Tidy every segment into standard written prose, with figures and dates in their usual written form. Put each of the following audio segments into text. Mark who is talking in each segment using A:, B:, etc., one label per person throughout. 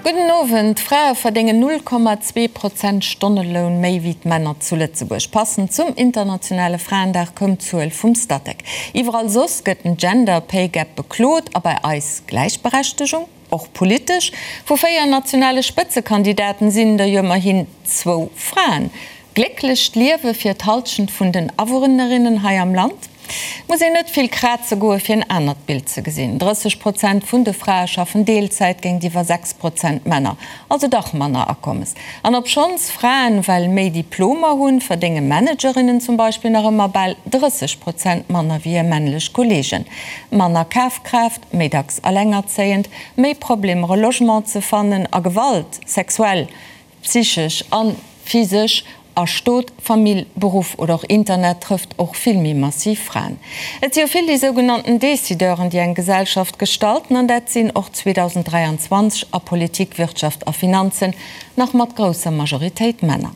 A: Gudden Owend. D'Frae verdéngen 0,2 Prozent Stonneloun méi wéi d'Männer zu Lëtzebuerg. Passend zum internationale Fraendag koum d'Zuel vum Statec. Iwwerall soss gëtt den Gender Pay Gap beklot a bei eis Gläichberechtegung? Och politesch, Vu 4 nationale Spëtzekandidaten sinn der jo ëmmerhin zwou Fraen. Glécklecht Liewe fir d'Halschent vun den Awunnerinnen hei am Land? Muss een net vill kraze goe fir en anert Bild ze gesinn. 30 Prozent vun de Frae schaffen Deelzäit géintiwwer 6 Prozent Männer, also dach manner Akommes. An obschonns Fraen well méi Diplomer hunn, verdénge Managerinnen zum Beispill nach ëmmer bal 30 Prozent manner wéi hir männlech Kolleegen. Manner Kafkraaft, méi dacks allengerzéiend, méi Problemer e Logement ze fannen a Gewalt, sexuell, psychesch a physesch, a Stot, Famill, Beruff oder och Internet trëfft och vill méi massiv Fraen. Et si jo vill déi sougenannten Decideuren, déi eng Gesellschaft gestalten, an dat sinn och 2023 a Politik, Wirtschaft a Finanzen nach mat grousser Majoritéit Männer.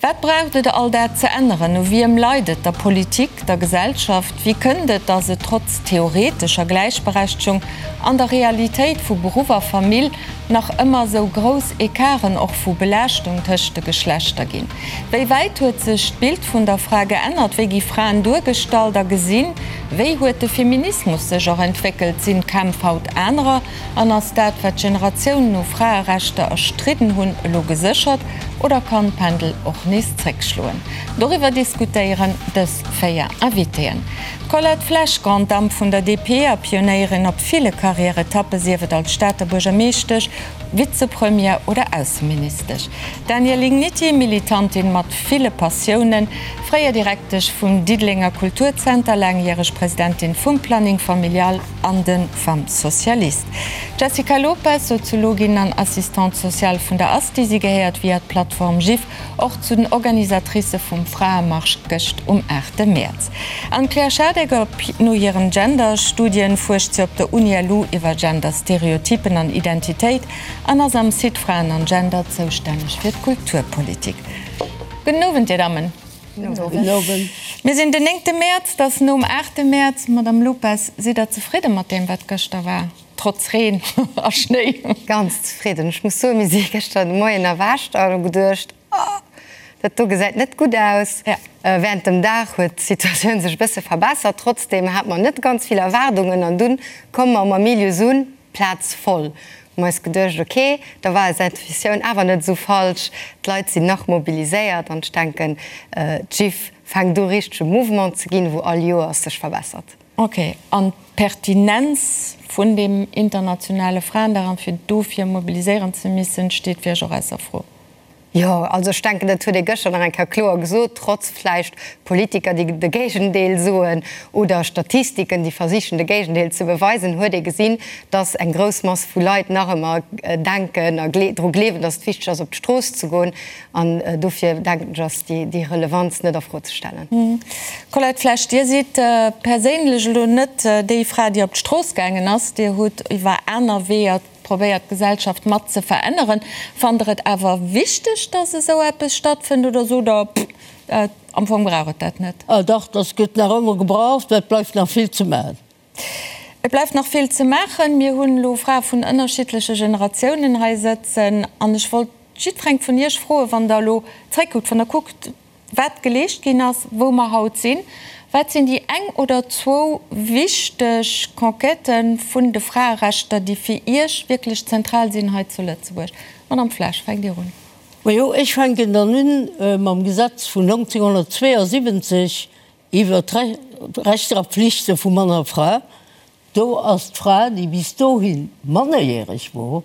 A: Wat braucht et all dat ze änneren? U wiem leit et? Der Politik? Der Gesellschaft? Wéi kënnt et, datt et trotz theoretescher Gläichberechtegung an der Realitéit vu Beruff a Famill nach ëmmer esou grouss Ecarten och vu Belaaschtung tëscht de Geschlechter ginn? Wéi wäit huet sech d'Bild vun der Fra geännert? Wéi gi Fraen duergestallt a gesinn? Wéi huet de Feminismus sech och entwéckelt? Sinn d'Kämpf haut anerer? An ass dat, wat Generatiounen u Fraerechter erstridden hunn, elo geséchert oder kann d'Pendel och nees zréckschloen? Doriwwer diskutéieren dës 4 Invitéen. D'Colette Flesch, Grande Dame vun der DP a Pionéierin op ville Karriäretappe, sief et als Stater Buergermeeschtesch, Vizepremière oder Ausseministesch. D'Danièle Igniti, Militantin mat ville Passiounen, fréier Direktesch vum Diddelenger Kulturzenter, laangjäreg Presidentin vum Planning Familial an de Femmes Socialistes. D'Jessica Lopes, Soziologin an Assistante sociale vun der ASTI, si gehéiert via d'Plattform GIF och zu den Organisatricë vum Fraemarsch gëscht um 8 Mäerz. An d'Claire Schadecker, no hiren Gender-Studien fuerscht si op der Uni-LU iwwer Gender-Stereotypen an Identitéit an ass am Site Fraen an Gender zoustänneg fir d'Kulturpolitik. Gudden Owend, Dir Dammen. Gudden Owend. Mir sinn den néngte Mäerz, et ass nom aachte Mäerz. Madame Lopes, sidd Der zefridde mat deem, wat gëschter war, trotz Reen a Schnéi?
B: Ganz zefridden. Ech muss soen, mir si gëschter de Moien erwächt an hu geduecht, Oh, dat do gesäit net gutt aus. Während dem Dag huet d'Situatioun sech e bësse verbessert. Trotzdeem hate mer net ganz vill Erwaardungen an dunn komme mer um Amilius un, d'Plaz voll. Hu mer eis geduecht, ok, da war eis Intuitioun awer net esou falsch, d'Leit sinn nach mobiliséiert an ech denken, d'Jiff fänkt u richtege Mouvement ze ginn, wou all Joers sech verbessert.
A: Ok, an d'Pertinenz vun deem internationale Fraendag an fir dofir mobiliséieren ze missen, steet fir Iech och ausser Fro?
B: Jo, also ech denken, dat huet ee gëschter nach eng Kéier kloer gesot, trotz vläicht Politiker, déi de Géigendeel soen, oder Statistiken, déi versichen, de Géigendeel ze beweisen, huet ee gesinn, dass eng grouss Mass vu Leit nach ëmmer denken a dru gleewen, dass et wichteg ass, op d'Strooss ze goen. An dofir, denken ech, ass déi Relevanz net a Fro ze stellen.
A: Colette Flesch, Dir sidd perséinlech elo net déi Fra, déi op d'Strooss gaangen ass. Dir hutt iwwer aner Weeër Probéiert d'Gesellschaft mat ze veränneren. Fannt der et awer wichteg, dass esou eppes stattfënnt oder sot der, pff, am Fong brauch et dat net?
C: Ah dach, dass gëtt nach ëmmer gebraucht, mä et bleift nach vill ze maachen.
A: Et bleift nach vill ze maachen. Mir hunn elo Frae vun ënnerschiddleche Generatiounen hei sëtzen an ech wollt jiddwereng vun Iech froen, wann der elo zréckkuckt, wann der kuckt, wat geleescht ginn ass, wou mer haut sinn, wat sinn déi eng oder zwou wichteg Conquêtë vun de Fraerechter, déi fir Iech wierklech zentral sinn hei zu Lëtzebuerg? Madame Flesch, fänkt Dir un.
C: Majo, ech fänken dann un mam Gesetz vun 1972 iwwer d'Rechter a Pflichte vu Mann a Fra. Do ass d'Fra, déi bis dohi mannerjäreg wor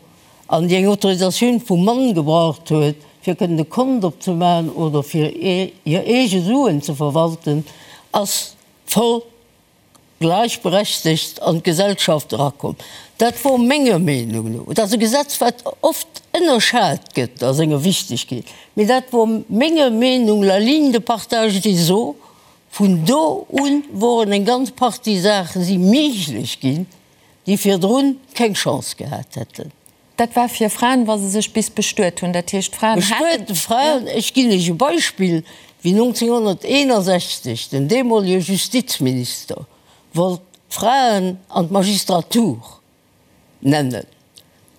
C: an déi eng Autorisatioun vum Mann gebraucht huet, fir kënnen e Kont opzemaachen oder fir hir eege Suen ze verwalten, ass voll gläichberechtegt an d'Gesellschaft erakomm. Dat wor menger Meenung no, et ass e Gesetz, wat oft ënnerschat gëtt a senger Wichtegkeet, mee dat wor menger Meenung la ligne de partage des eaux Vun do un woren eng ganz Partie Saache si méiglech ginn, déi virdrun keng Chance gehat hätten.
A: Dat war fir Fraen, wa se sech bis bestuet hunn. Dat heescht, d'Fraen haten.
C: Bestuete Fraen, ech ginn lech e Beispill, wéi 1961 den deemolege Justizminister wollt d'Fraen an d'Magistratur nennen.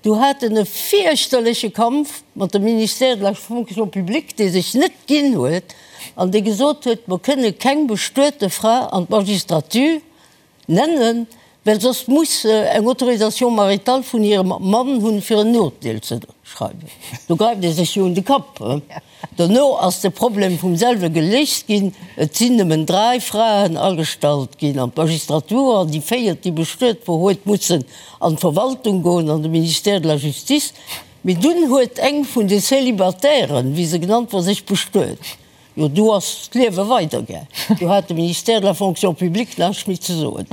C: Du hat en e fierchterleche Kampf mat dem Ministère de la Fonction publique, dee sech net ginn huet an dee gesot huet, mer kënne keng bestuete Fra an d'Magistrature nennen, well soss muss se eng Autorisation maritale vun hirem Mann hunn, fir en Urteel ze schreiwen. Do gräift ee sech jo un de Kapp. Dono ass de Problem vum selwe geléist ginn, et sinn nëmmen 3 Fraen agestallt ginn an d'Magistratur an déi véiert, déi bestuet wor, huet mussen an d'Verwaltung goen, an de Ministère de la Justice. Mee dunn huet eng vun de Célibatairen, wéi se genannt wor, sech bestuet. Jo, do ass d'Liewe weidergaang. Do hat de Ministère de la Fonction publique näischt méi ze soen.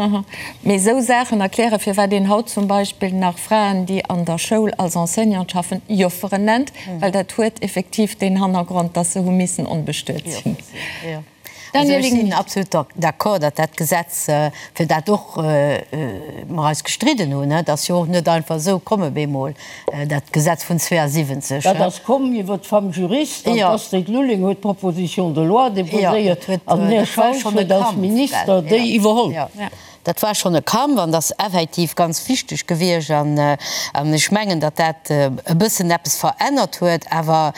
A: Mee esou Saachen erklären, firwat een haut zum Beispill nach Fraen, déi an der Schoul als Enseignante schaffen, Jofferen nennt, well dat huet effektiv deen Hannergrond, dass se hu missen onbestuet sinn.
B: Also ech sinn absolut d'accord, datt dat Gesetz, fir dat och mer eis gestridden hunn, dat ass jo och net einfach esou komm op eemol, dat Gesetz vun 72.
C: Dat ass komm iwwer d'Femme juriste an d'Astrid Lulling huet d'Proposition de loi déposéiert an den Här Schausch huet als Minister déi iwwerholl.
B: Dat war schonn e Kampf an dat ass effektiv ganz wichteg gewiescht. An ech mengen, datt dat e bëssen eppes verännert huet. Awer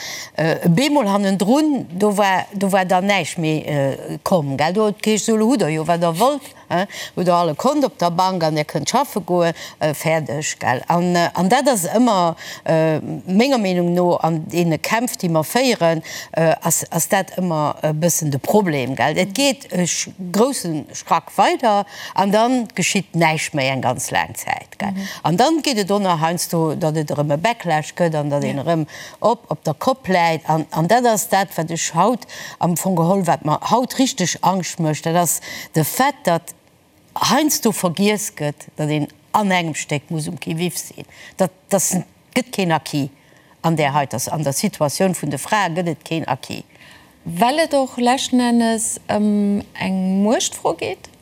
B: bemol hannendrun, do war, do war dann näischt méi komm, gell. Do huet et geheescht, Esou, elo hutt Der jo, wat Der wollt, hutt Der all e Kont op der Bank an Der kënnt schaffe goen, fäerdeg, gell. An dat ass ëmmer, menger Meenung no, an deene Kämpf, déi mer féieren, ass, ass dat ëmmer e bëssen de Problem, gell. Et geet e grousse Schrack weider an dann geschitt näischt méi eng ganz laang Zäit, gell. An dann geet et och nach heiansdo, datt et erëm e Backlash gëtt an datt een erëm op op der Kopp läit. An an dat ass dat, wat ech haut am Fong geholl, wat mer haut richteg Angscht mécht, dat ass de Fait, datt heiansdo vergiess gëtt, datt een an engem Stéck muss um Qui-vive sinn, datt datt gëtt keen Acquis an där heiter, an der Situatioun vun de Frae gëtt et keen Acquis.
A: Well et och leschten Ennes ëm eng Muechtfro geet?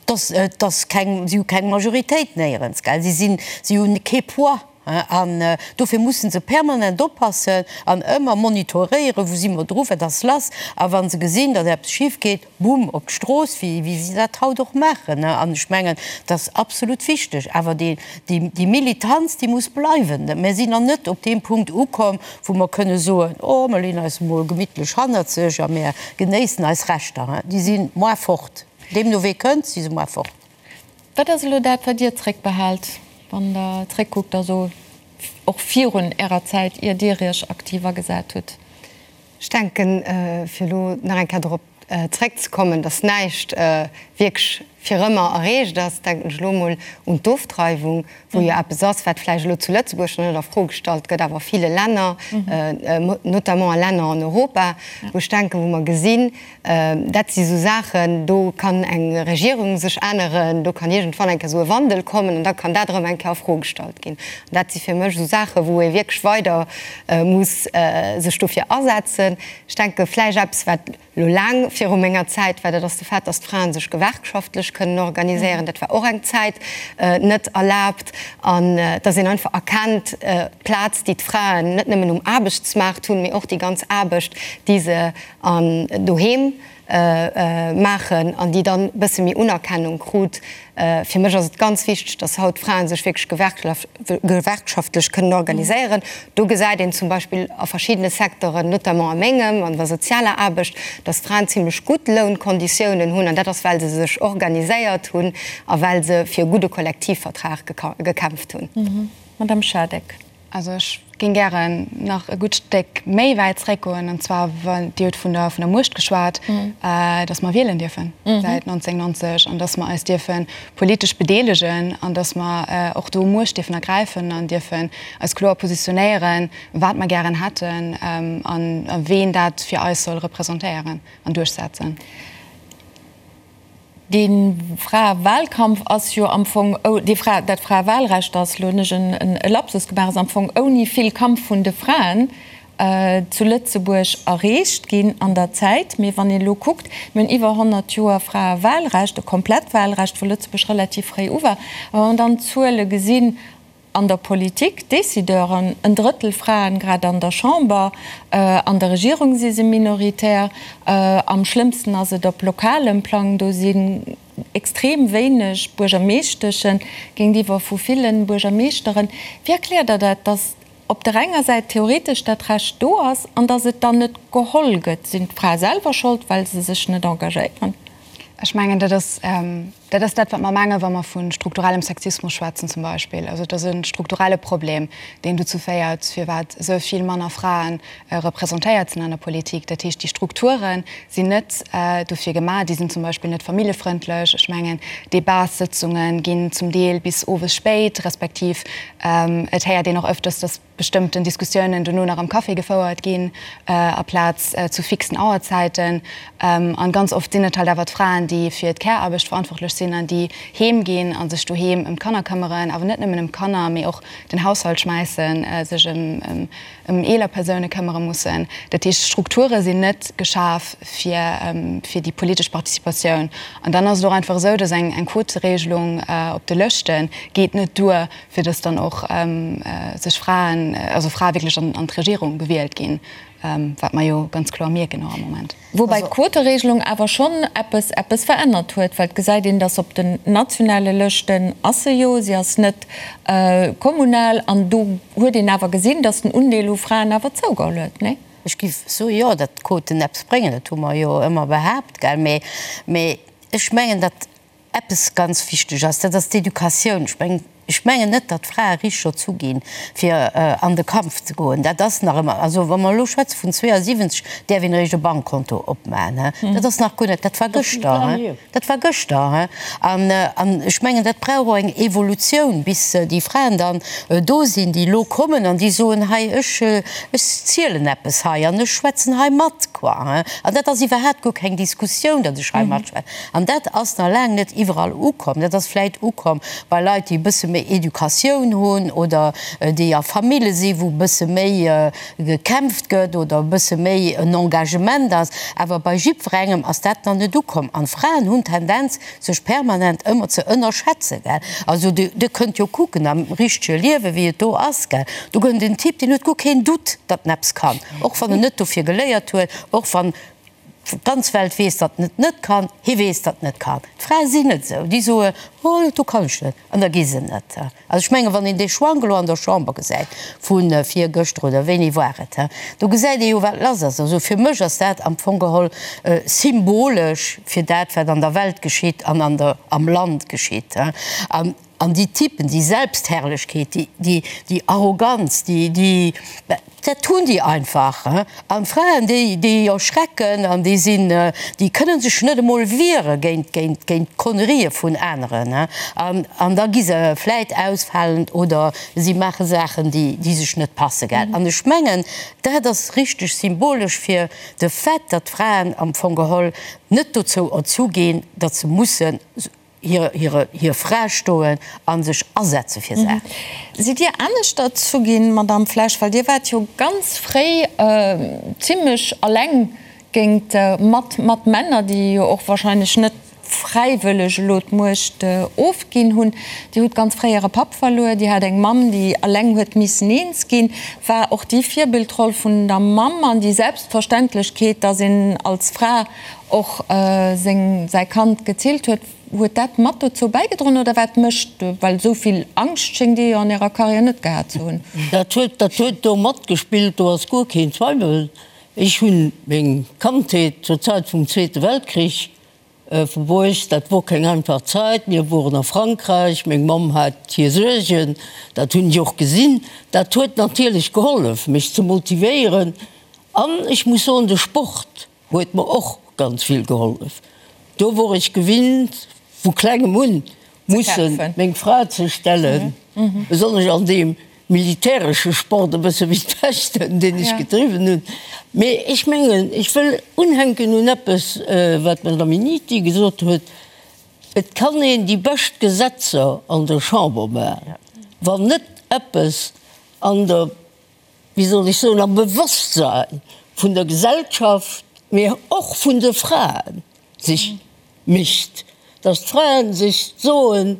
B: Dass, et ass keng, si hu keng Majoritéit néierens, gell. Si sinn, si hunn kee Poids, an dofir musse se permanent oppassen an ëmmer monitoréieren, wou si mer dru, wat ass lass. A wa se gesinn, datt eppes schif geet, Boom, op d'Strooss, wéi wéi si dat haut och maachen. An ech mengen, dat ass absolut wichteg. Awer déi, déi, déi Militanz, déi muss bleiwen. Mir sinn nach net op deem Punkt ukomm, wou mer kënne soen, Oh, mer leeën eis emol gemittlech hannerzeg a mir genéissen eis Rechter. Déi si moar fort. Deemno wee kënnt, si se moar fort.
A: Wat ass elo dat, wat Dir zréckbehaalt, wann Der zréckkuckt, also och virun Ärer Zäit, ier Dir Iech aktiv agesat hutt?
B: Ech denken, fir elo nach eng Kéier dorop zréckzekommen, dass näischt wierklech fir ëmmer erreecht ass, denken ech elo emol un d'Ofdreiwung, wou jo eppes ass, wat vläicht elo zu Lëtzebuerg nach net a Fro gestallt gëtt, awer a ville Länner, notamment a Länner an Europa, wou ech denken, wou mer gesinn, dat si sou Saachen, do kann eng Regierung sech änneren, do kann iergendwann eng Kéier esou e Wandel kommen an da kann dat erëm eng Kéier a Fro gestallt ginn. An dat si fir mech esou Saachen, wou ee wierklech weider muss sech dofir asetzen. Ech denke vläicht eppes, wat elo laang viru menger Zäit war, dat ass de Fait, datt d'Frae sech gewerkschaftlech kënnen organiséieren. Dat war och eng Zäit net erlaabt. An datt een einfach erkennt, d'Plaz, déi d'Fraen net nëmmen um Aarbechtsmaart hunn, mee och déi ganz Aarbecht, déi se an doheem maachen an déi dann e bësse méi Unerkennung krut. Fir mech ass et ganz wichteg, dass haut d'Frae sech wierklech gewerkschaftlech kënnen organiséieren. Do gesäit een zum Beispill a verschiddene Secteuren, notamment a mengem, an der sozialer Aarbecht, dass d'Fraen zimlech gutt Lounkonditiounen hunn an dat ass, well se sech organiséiert hunn a well se fir e gudde Kollektivvertrag gekämpft hunn.
A: Madame Schadeck.
D: Also ech géing gären nach e gutt Stéck méi wäit zréckgoen, an zwar, Dir hutt vun der vun der Muecht geschwat, datt mer wielen dierfen säit 1990 an datt mer eis dierfe politesch bedeelegen an datt mer och do Muecht dierfen ergräifen an dierfen eis kloer positionéieren, wat mer gären hätten a ween dat fir eis soll representéieren an duerchsetzen.
A: Dee Fraewahlkampf ass jo am Fong, dee Fra, dat Fraewahlrecht ass, elo hunn ech e Lapsus gemaach, ass am Fong ouni vill Kampf vun de Fraen zu Lëtzebuerg erreecht ginn an der Zäit. Mee wann een elo kuckt, mir hunn iwwer 100 Joer Fraewahlrecht, e komplett Wahlrecht, wou Lëtzebuerg relativ fréi u war, a wa mer dann d'Zuele gesinn, An der Politik, Décideuren, en Drëttel Fraen, grad an der Chamber, an der Regierung si se minoritär. Am schlëmmsten ass et op lokalem Plang, do si. extrem wéineg Buergermeeschteschen géintiwwer vu villen Buergermeeschteren. Wéi erkläert Der dat, datt op der enger Säit theoretesch dat Recht do ass an datt et dann net geholl gëtt? Sinn d'Frae selwer Schold, well se sech net engagéieren?
D: Ech mengen, dat ass dat ass dat, wat mer mengen, wa mer vu strukturellem Sexismus schwätzen zum Beispill. Also et ass e strukturelle Problem, deen dozou féiert, firwat esou vill manner Frae representéiert sinn an der Politik. Dat heescht, déi Strukture sinn net dofir gemaach, déi sinn zum Beispill net familljefrëndlech. Ech mengen, Debatssëtzunge ginn zum Deel bis owes spéit, respektiv et héiert een och ëfters, datt bestëmmten Diskussiounen dono nach am Café gefouert ginn, aplaz zu fixen Auerzäiten. An ganz oft sinn et halt awer d'Fraen, déi fir d'Care-Aarbecht verantwortlech sinn an déi heem ginn a sech doheem ëm d'Kanner këmmeren, awer net nëmmen ëm d'Kanner, mee och den Haushalt schmäissen, sech ëm eeler Persoune këmmere mussen. Dat heescht, d'Strukture sinn net geschaf fir fir déi politesch Participatioun. An dann ass et och einfach esou, datt eng Quoteregelung op de Lëschte geet net duer, fir dass dann och sech Fraen, also Frae wierklech an d'Regierung gewielt ginn, wat mer jo ganz kloer mierken och am Moment.
A: Woubäi d'Quoteregelung awer schonn eppes eppes verännert huet, well et gesäit een, dass op den nationale Lëschten ass se jo, si ass net kommunal, an do huet een awer gesinn, dass den Undeel u Fraen awer zougeholl huet, nee?
E: Ech géif soen, jo, datt d'Quoten eppes bréngen, dat hu mer jo ëmmer behaapt, gell, mee ech mengen, datt Eppes ganz wichteg ass, dat ass d'Educatioun. Ech mengen, ech mengen net, datt d'Frae richteg erzu ginn, fir an de Kampf ze goen. Dat ass nach ëmmer, also wa mer elo schwätze vun 72, däerf een eréischt e Bankkonto opmaachen, he. Dat ass nach guer net, dat war gëschter, he, dat war gëschter, he. An, an ech mengen, dat brauch och eng Evolutioun, bis déi Fraen dann do sinn, déi elo kommen an déi soen, hei, ech, ech zielen eppes hei an ech schwätzen hei mat, quoi, he. An dat ass iwwerhaapt guer keng Diskussioun, datt ech hei matschwätzen. An dat ass nach laang net iwwerall ukomm. Dat ass vläit ukomm bei Leit, déi e bësse méi Educatioun hunn oder déi a Famille sinn, wou e bësse méi gekämpft gëtt oder e bësse méi en Engagement ass. Awer bei jiddwerengem ass dat nach net ukomm. An d'Fraen hunn d'Tendenz, sech permanent ëmmer ze ënnerschätzen, gell. Also Dir kënnt jo kucken am richtege Liewen, wéi et do ass, gell. Do gëtt en Typ, deen huet guer keen Doute, datt en eppes kann, och wann en net dofir geléiert huet, och wann D'ganz Welt weess, datt en et net kann, hie weess, datt en et kann. D'Frae sinn net esou, déi soen, Oh, dat do kann ech net, an da gi se net. Also ech mengen, wann een dee Schwank elo an der Chamber gesäit vu virgëschter oder wéini war et, do gesäit ee jo, wat lass ass. Also fir mech ass dat am Fong geholl symbolesch fir dat, wat an der Welt geschitt an an der, am Land geschitt. An An déi Typen, déi Selbstherrlechkeet, déi, déi Arroganz, déi, déi, dat hunn déi einfach. An d'Fraen, déi, déi erschrecken an déi sinn, déi kënne sech net emol wiere géint, géint, géint d'Konnerië vun aneren. An, an da gi se vläit ausfalend oder si maache Saachen, déi, déi sech net passe, gell. An ech mengen, dat ass richteg symbolesch fir de Fait, datt d'Fraen am Fong geholl net dozou erzu ginn, datt se mussen hir Fra stoen a sech asetze fir Saachen.
A: Sidd Dir anescht erzu ginn, Madamm Flesch? Well Dir waart jo ganz fréi zimlech alleng géint mat mat Männer, déi jo och wahrscheinlech net fräiwëlleg elo d'Muecht ofginn hunn. Dir hutt ganz fréi Äre Papp verluer, Dir hat eng Mamm, déi alleng huet missen eens ginn. War och déi Virbildroll vun der Mamm an déi Selbstverständlechkeet, datt een als Fra och seng, säi Kand gezillt huet, huet dat mat dozou bäigedroen oder wat mécht, well esou vill Angscht schéngt Dir jo an Ärer Karriär net gehat ze hunn?
C: Dat huet, dat huet do matgespillt, do ass guer keen Zweiwel. Ech hunn meng Kandheet zur Zäit vum Zweete Weltkrich verbruecht. Dat wor keng einfach Zäit. Mir woren a Frankräich, meng Mamm hat hir Suergen, dat hunn ech och gesinn. Dat huet natierlech gehollef, mech ze motivéieren an ech muss soen, de Sport Huet mer och ganz vill gehollef. Do wor ech gewinnt vu klengem un mussen meng Fra ze stellen, besonnesch an deem militäresche Sport, e bësse wéi d'Fechten, deen ech gedriwwen hunn. Mee ech mengen, ech wëll unhänken un eppes, wat d'Madame Minniti gesot huet, Et kann een déi bescht Gesetzer an der Chamber maachen, wann net eppes an der wéi soll ech soen, am Bewosstsein vun der Gesellschaft, mee och vun de Fraen sech mischt, dass d'Fraen sech soen,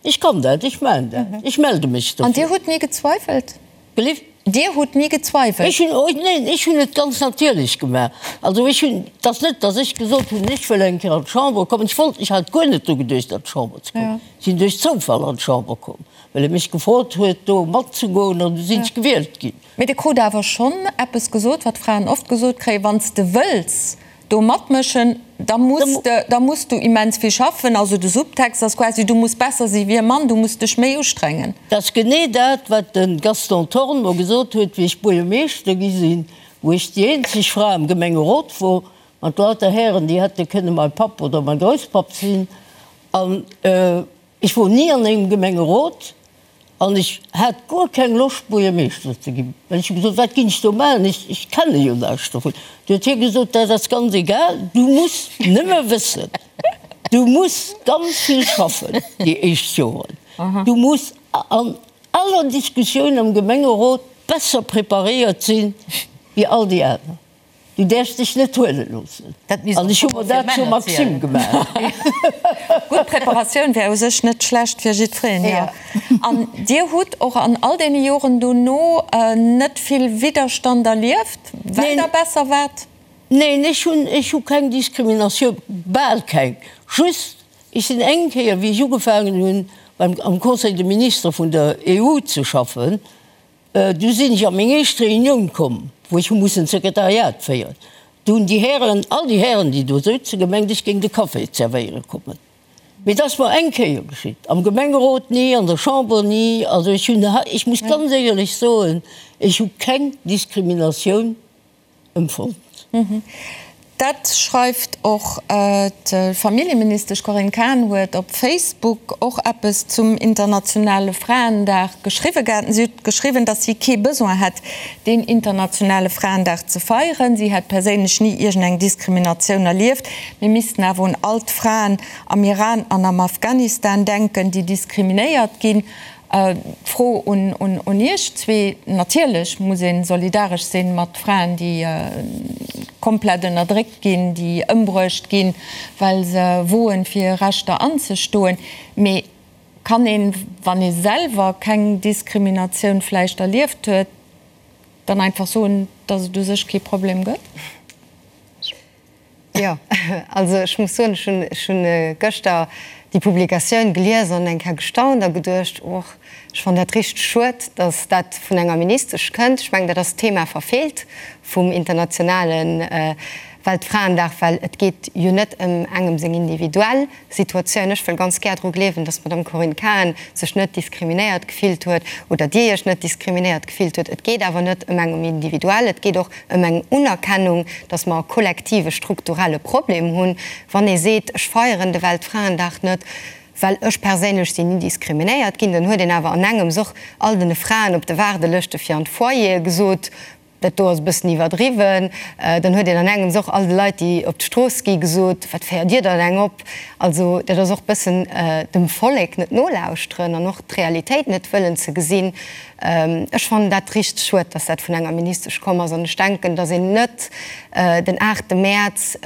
C: ech kann dat, ech maachen dat, ech melde mech
A: dofir. An Dir hutt ni gezweifelt?
C: Gelift?
A: Dir hutt ni gezweiwelt?
C: Ech hunn, oh neen, ech hunn et ganz natierlech gemaach. Also ech hunn, et ass net, datt ech gesot hunn, ech wëll eng Kéier an d'Chamber kommen. Ech wollt, ech hat guer net dru geduecht an d'Chamber ze kommen. Ech sinn duerch Zoufall an d'Chamber komm, well e mech gefrot huet do matzegoen an du sinn ech gewielt ginn.
A: Mee Dir krut awer schonn eppes gesot, wat Fraen oft gesot kréien, Wann s de wëlls do matmëschen, da muss de, da muss du immens vill schaffen. Also de Subtext ass quasi, du muss besser si wéi e Mann, du muss dech méi ustrengen.
C: Dat ass genee dat, wat de Gaston Thorn mer gesot huet, wéi ech Buergermeeschter gi sinn, wou ech déi eenzeg Fra am Gemengerot wor, mat lauter Hären, déi hätte kënne mäi Papp oder mäi Grousspapp sinn. An ech wor ni an engem Gemengerot. An ech hat guer keng Loscht, Buergermeeschter ze ginn, well ech hu gesot, Wat ginn ech do maachen, ech, ech kenne jo näischt dovun. Du huet hie gesot, Dat ass ganz egal, du muss nëmme wëssen, du muss ganz vill schaffen déi éischt Joren, du muss an aller Diskussioun am Gemengerot besser preparéiert sinn wéi all déi aner. Du däerfs dech net huele loossen. An ech hu mer dat zur Maxime gemaach.
A: Gutt Preparatioun wär u sech net schlecht fir jiddwereen, jo. An Dir hutt och an all deene Joren dono net vill Widderstand erlieft, well Der besser waart?
C: Neen, ech hunn, ech hu keng Diskriminatioun, bal keng. Just, ech sinn eng Kéier, wéi ech ugefaangen hunn beim, am Conseil de ministres vun der EU ze schaffen, Du sinn ech a meng éischt Reunioun komm, wou ech hu mussen d'Sekretariat féieren. Du hunn déi Hären, all déi Hären, déi do souzen, gemengt, ech géing de Café zerwéiere kommen. Mee et ass mer eng Kéier geschitt, am Gemengerot ni, an der Chamber ni. Also ech hunn, ech muss ganz éierlech soen, ech hu keng Diskriminatioun empfonnt.
A: Dat schreift och d'Familljeministesch Corinne Cahen huet op Facebook och eppes zum internationale Fraendag geschriwwe gehat. Si huet geschriwwen, datt si kee Besoin hätt, deen internationale Fraendag ze feieren. Si hätt perséinlech ni iergendeng Diskriminatioun erlieft. Mir missten awer un all d'Fraen am Iran an am Afghanistan denken, déi diskriminéiert ginn. D'Fro un Iech zwee, Natierlech muss ee solidaresch si mat Fraen, déi komplett ënnerdréckt ginn, déi ëmbruecht ginn, well se woen, fir hir Rechter anzestoen. Mee kann een, wann ee selwer keng Diskriminatioun vläicht erlieft huet, dann einfach soen, datt et u sech kee Problem gëtt?
B: Jo, also ech muss soen, ech hunn, ech hunn gëschter déi Publikatioun gelies an eng Kéier gestaunt a geduecht, Och, ech fannen dat richteg schued, datt dat vun enger Ministesch kënnt. Ech mengen, dat ass d'Thema verfeelt vum internationale Weltfraendag, well et geet jo net ëm engem seng individuell Situatioun. Ech wëll ganz gär dru gleewen, dass d'Madame Corinne Cahen sech net diskriminéiert gefillt huet oder Dir Iech net diskriminéiert gefillt huet. Et geet awer net ëm eng individuell, et geet och ëm eng Unerkennung, dass mer e kollektive strukturelle Problem hunn. Wann ee seet, ech feieren de Weltfraendag net, well ech perséinlech sinn ni diskriminéiert ginn, dann huet een awer an engems och all den Fraen op de Waardelëschte fir an d'Foyere gesot, Dat do ass e bëssen iwwerdriwwen. Dann huet een an engems och all de Leit, déi op d'Strooss gi gesot, Wat féiert Dir dann eng op? Also dat ass och bëssen dem Vollek net nolauschteren an och d'Realitéit net wëllen ze gesinn. Ech fannen dat richteg schued, dass dat vun enger Ministesch komm ass. An ech denken, dass een net den aachte Mäerz,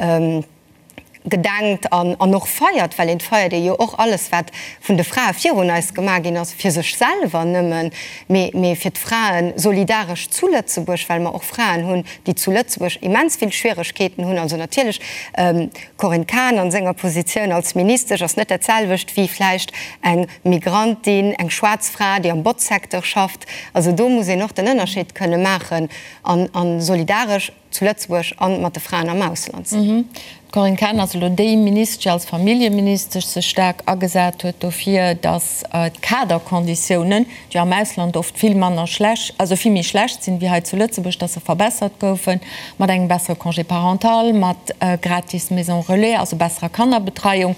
B: gedenkt an an och feiert, well een feiert ee jo och alles wat vun de Frae virun eis gemaach ginn ass, fir sech selwer nëmmen, mee mee fir d'Frae solidaresch zu Lëtzebuerg, well mer och Fraen hunn, déi zu Lëtzebuerg immens vill Schwieregkeeten hunn. Also natierlech, d'Corinne Cahen an senger Positioun als Ministesch ass net dat selwecht wéi vläicht eng Migrantin, eng schwaarz Fra, déi am Botzsecteur schafft. Also do muss een och den Ënnerscheed kënne maachen an a solidaresch. zu Lëtzebuerg an mat de Fraen am Ausland sinn.
A: D'Corinne Cahen ass elo déi Ministesch, déi als Familljeministesch sech staark agesat huet dofir, datt d'Kaderkonditiounen, déi am Ausland oft vill manner schlecht, also vill méi schlecht sinn wéi hei zu Lëtzebuerg, datt se verbessert goufen, mat engem bessere Congé parental, mat gratis Maison relais, also besserer Kannerbetreiung.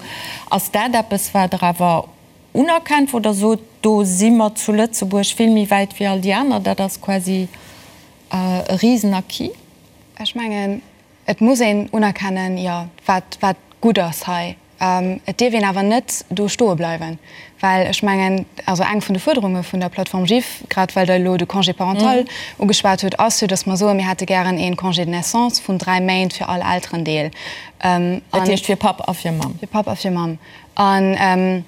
A: Ass dat eppes, wat Der awer unerkennt, wou Der sot, do si mer zu Lëtzebuerg vill méi wäit wéi all déi aner, dat ass quasi E Risen-Acquis.
D: Ech mengen, et muss een unerkennen, jo, wat, wat gutt ass hei. Et dierf een awer net do stoe bleiwen, well ech mengen, also eng vun de Fuerderunge vun der Plateforme GIF, grad well Der elo de Congé parental ugeschwat hutt, ass jo, datt mer soen, mir hätte gären ee Congé de naissance vun dräi Méint fir all Elterendeel.
A: Dat heescht fir Papp a fir Mamm.
D: Fir Papp a fir Mamm. An,